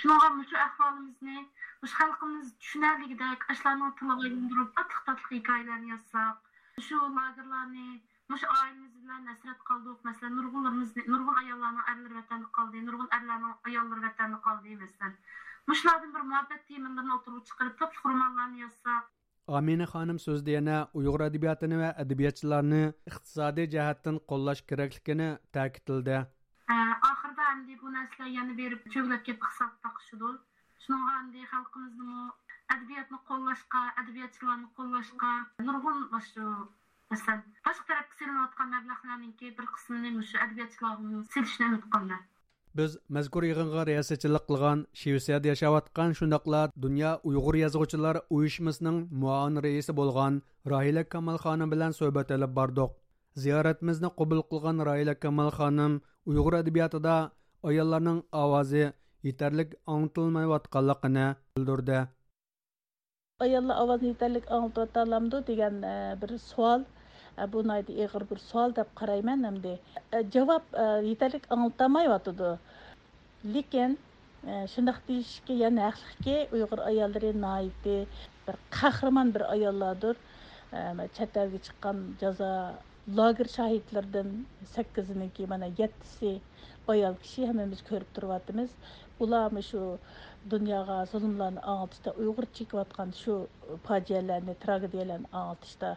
شۇنىڭغا مۇشۇ ئەھۋالىمىزنى، مۇشۇ خەلقىمىز چۈشىنەلىگۈدەك ئاشۇلارنىڭ تىلىغا ئايلاندۇرۇپ، تاتلىق-تاتلىق ھېكايىلەرنى يازساق، مۇشۇ لاگېرلارنى، مۇشۇ ئائىلىمىز بىلەن ھەسرەت قالدۇق. مەسىلەن، نۇرغۇنلىرىمىزنى، نۇرغۇن ئاياللارنىڭ ئەرلىرى ۋەتەندە قالدى، نۇرغۇن ئەرلەرنىڭ ئاياللىرى ۋەتەندە قالدى، مەسىلەن. مۇشۇلاردىن بىر مۇھەببەت تېمىلىرىنى ئوتتۇرىغا چىقىرىپ، تاتلىق رومانلارنى يازساق. ئامىنە خانىم سۆزىدە يەنە ئۇيغۇر ئەدەبىياتىنى ۋە ئەدەبىياتچىلارنى ئىقتىسادىي جەھەتتىن قوللاش كېرەكلىكىنى تەكىتلىدى. ئە، ئاخىرىدا ئەمدى بۇ نەرسىلەر يەنە بېرىپ چۆگىلەپ كېتىپ ئىقتىساد تاقىشىدۇ. شۇنىڭغا ئەمدى خەلقىمىزنىمۇ ئەدەبىياتنى قوللاشقا، ئەدەبىياتچىلارنى قوللاشقا نۇرغۇن مۇشۇ، مەسىلەن، باشقا تەرەپكە سېلىنىۋاتقان مەبلەغلەرنىڭكى بىر قىسمىنى مۇشۇ ئەدەبىياتچىلارغىمۇ سېلىشنى ئۈمىد قىلىمەن. بىز مەزكۇر يىغىنغا رىياسەتچىلىك قىلغان شىۋېتسىيەدە ياشاۋاتقان، شۇنداقلا دۇنيا ئۇيغۇر يازغۇچىلار ئۇيۇشمىسىنىڭ مۇئاۋىن رەئىسى بولغان راھىلە كامال خانىم بىلەن سۆھبەت ئېلىپ باردۇق. زىيارىتىمىزنى قوبۇل قىلغان راھىلە كامال خانىم ئۇيغۇر ئەدەبىياتىدا ئاياللارنىڭ ئاۋازى يېتەرلىك ئاڭلىتىلمايۋاتقانلىقىنى بىلدۈردى. ئاياللار ئاۋازىنى يېتەرلىك ئاڭلىتىۋاتالامدۇ دېگەن، ئە، بىر سوئال. ئە، بۇ ناھايىتى ئېغىر بىر سوئال دەپ قارايمەن ئەمدى. ئە، جاۋاب، ئە، يېتەرلىك ئاڭلىتالمايۋاتىدۇ. لېكىن، ئە، شۇنداق دېيىشكە يەنە ھەقلىقكى، ئۇيغۇر ئاياللىرى ناھايىتى بىر قەھرىمان بىر ئاياللاردۇر. ئە، چەت ئەلگە چىققان جازا لاگېر شاھىتلىرىدىن سەككىزىنىڭكى، مانا، يەتتىسى ئايال كىشى، ھەممىمىز كۆرۈپ تۇرۇۋاتىمىز. ئۇلار مۇشۇ دۇنياغا زۇلۇملارنى ئاڭلىتىشتا، ئۇيغۇر چېكىۋاتقان شۇ پاجىئەلەرنى، تراگېدىيەلەرنى ئاڭلىتىشتا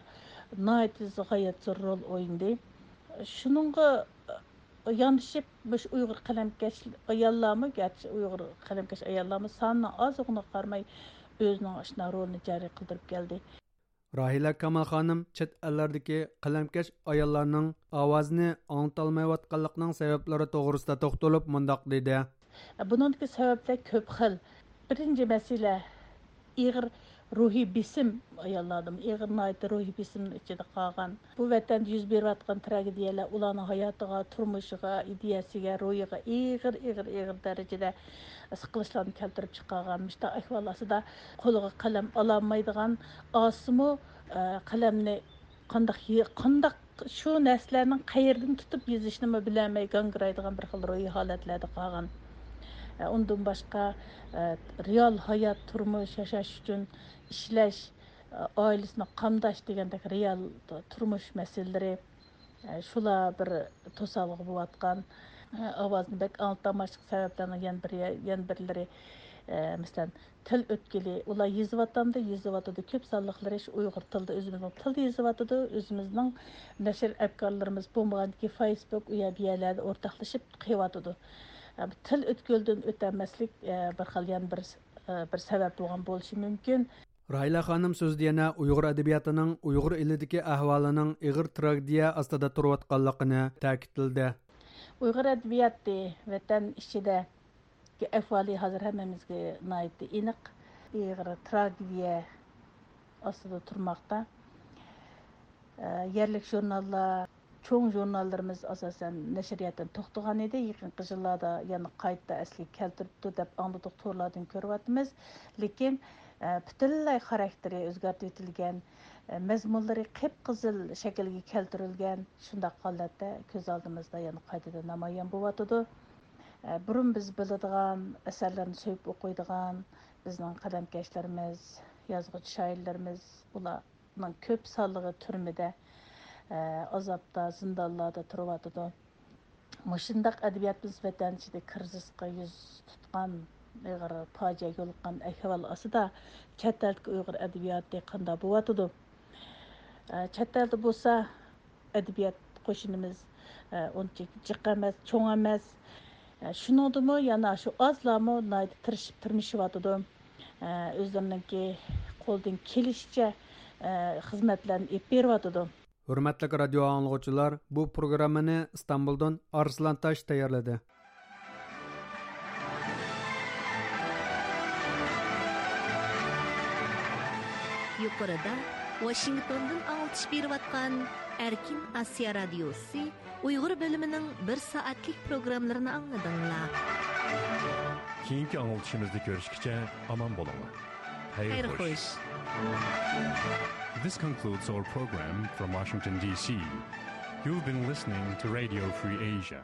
ناھايىتى غايەت زور رول ئوينىدى. شۇنىڭغا ياندىشىپ، مۇشۇ ئۇيغۇر قەلەمكەش ئاياللارمۇ، گەرچە ئۇيغۇر قەلەمكەش ئاياللارمۇ سانىنىڭ ئازلىقىغا قارىماي، ئۆزىنىڭ ئاشۇنداق رولىنى جارى قىلدۇرۇپ كەلدى. راھىلە كامال خانىم چەت ئەللەردىكى قەلەمكەش ئاياللارنىڭ ئاۋازىنى ئاڭلىتالمايۋاتقانلىقىنىڭ سەۋەبلىرى توغرىسىدا توختىلىپ مۇنداق دېدى. بۇنىڭدىكى سەۋەبلەر كۆپ خىل. بىرىنچى مەسىلە، ئېغىر روھىي بېسىم ئاياللاردىمۇ، ئېغىر ناھايىتى روھىي بېسىمنىڭ ئىچىدە قالغان. بۇ ۋەتەندە يۈز بېرىۋاتقان تراگېدىيەلەر ئۇلارنىڭ ھاياتىغا، تۇرمۇشىغا، ئىدىيەسىگە، روھىغا ئېغىر، ئېغىر، ئېغىر دەرىجىدە سىقىلىشلارنى كەلتۈرۈپ چىقارغان. مۇشۇنداق ئەھۋال ئاستىدا قولىغا قەلەم ئالالمايدىغان، ئالسىمۇ، ئە، قەلەمنى قانداق يە-، قانداق شۇ نەرسىلەرنىڭ قەيېرىدىن تۇتۇپ يېزىشنىمۇ بىلەلمەي گاڭگىرايدىغان بىر خىل روھىي ھالەتلەردە قالغان. ئە، ئۇندىن باشقا، ئە، رېئال ھايات، تۇرمۇش، ياشاش ئۈچۈن ئىشلەش، ئائىلىسىنى قامداش دېگەندەك رېئال تۇرمۇش مەسىلىلىرى، شۇلار بىر توسالغۇ بولۇۋاتقان. ئاۋازنى بەك ئاڭلىتالماسلىق سەۋەبلەرنىڭ يەنە بىر، يەنە بىرلىرى، مەسىلەن، تىل ئۆتكىلى، ئۇلار يېزىۋاتامدۇ، يېزىۋاتىدۇ، كۆپ سانلىقلىرى شۇ ئۇيغۇر تىلىدا، ئۆزىمىزنىڭ تىلىدا يېزىۋاتىدۇ، ئۆزىمىزنىڭ نەشر ئەپكارلىرىمىز بولمىغاندىكىن فېيسبۇك، ئۇ يەر بۇ يەرلەردە ئورتاقلىشىپ قىلىۋاتىدۇ. تىل ئۆتكىلىدىن ئۆتەلمەسلىك، بىر خىل يەنە بىر، بىر سەۋەب بولغان بولۇشى مۇمكىن. راھىلە خانىم سۆزىدە يەنە ئۇيغۇر ئەدەبىياتىنىڭ ئۇيغۇر ئېلىدىكى ئەھۋالىنىڭ ئېغىر تراگېدىيە ئاستىدا تۇرۇۋاتقانلىقىنى تەكىتلىدى. ئۇيغۇر ئەدەبىياتى ۋەتەن ئىچىدىكى ئەھۋالى ھازىر ھەممىمىزگە ناھايىتى ئېنىق. ئېغىر تراگېدىيە ئاستىدا تۇرماقتا. ئە، يەرلىك ژۇرناللار، چوڭ ژۇرناللىرىمىز ئاساسەن نەشرىياتتىن توختىغان ئىدى. يېقىنقى يىللاردا يەنە قايتا ئەسلىگە كەلتۈرۈپتۇ دەپ ئاڭلىدۇق، تورلاردىن كۆرۈۋاتىمىز. لېكىن، ئە، پۈتۈنلەي خاراكتېرى ئۆزگەرتىۋېتىلگەن، مەزمۇنلىرى قىپقىزىل شەكىلگە كەلتۈرۈلگەن شۇنداق ھالەتتە كۆز ئالدىمىزدا يەنە قايتىدىن نامايان بولۇۋاتىدۇ. بۇرۇن بىز بىلىدىغان، ئەسەرلەرنى سۆيۈپ ئوقۇيدىغان بىزنىڭ قەلەمكەشلىرىمىز، يازغۇچى شائىرلىرىمىز، ئۇلارنىڭ كۆپ سانلىقى تۈرمىدە، ئازابتا، زىندانلاردا تۇرۇۋاتىدۇ. مۇشۇنداق ئەدەبىياتىمىز ۋەتەن ئىچىدە كىرىزىسقا يۈز تۇتقان، ئېغىر پاجىئەگە يولۇققان ئەھۋال ئاستىدا چەت ئەلدىكى ئۇيغۇر ئەدەبىياتى قانداق بولۇۋاتىدۇ؟ ئە، چەت ئەلدە بولسا ئەدەبىيات قوشۇنىمىز، ئە، ئۇنچە جىق ئەمەس، چوڭ ئەمەس. ئە، شۇنىڭدىمۇ يەنە شۇ ئازلارمۇ ناھايىتى تىرىشىپ تىرمىشىۋاتىدۇ. ئە، ئۆزلىرىنىڭكى قولىدىن كېلىشىچە، ئە، خىزمەتلەرنى ئېلىپ بېرىۋاتىدۇ. ھۆرمەتلىك رادىيو ئاڭلىغۇچىلار، بۇ پروگراممىنى ئىستانبۇلدىن ئارسلان تاش تەييارلىدى. يۇقىرىدا ۋاشىنگتوندىن ئاڭلىتىش بېرىۋاتقان ئەركىن ئاسىيا رادىيوسى ئۇيغۇر بۆلۈمىنىڭ بىر سائەتلىك پروگراممىلىرىنى ئاڭلىدىڭلار. كېيىنكى ئاڭلىتىشىمىزدا كۆرۈشكىچە ئامان بولۇڭلار. خەير خوش. This concludes our program from Washington, D C. You've been listening to Radio Free Asia.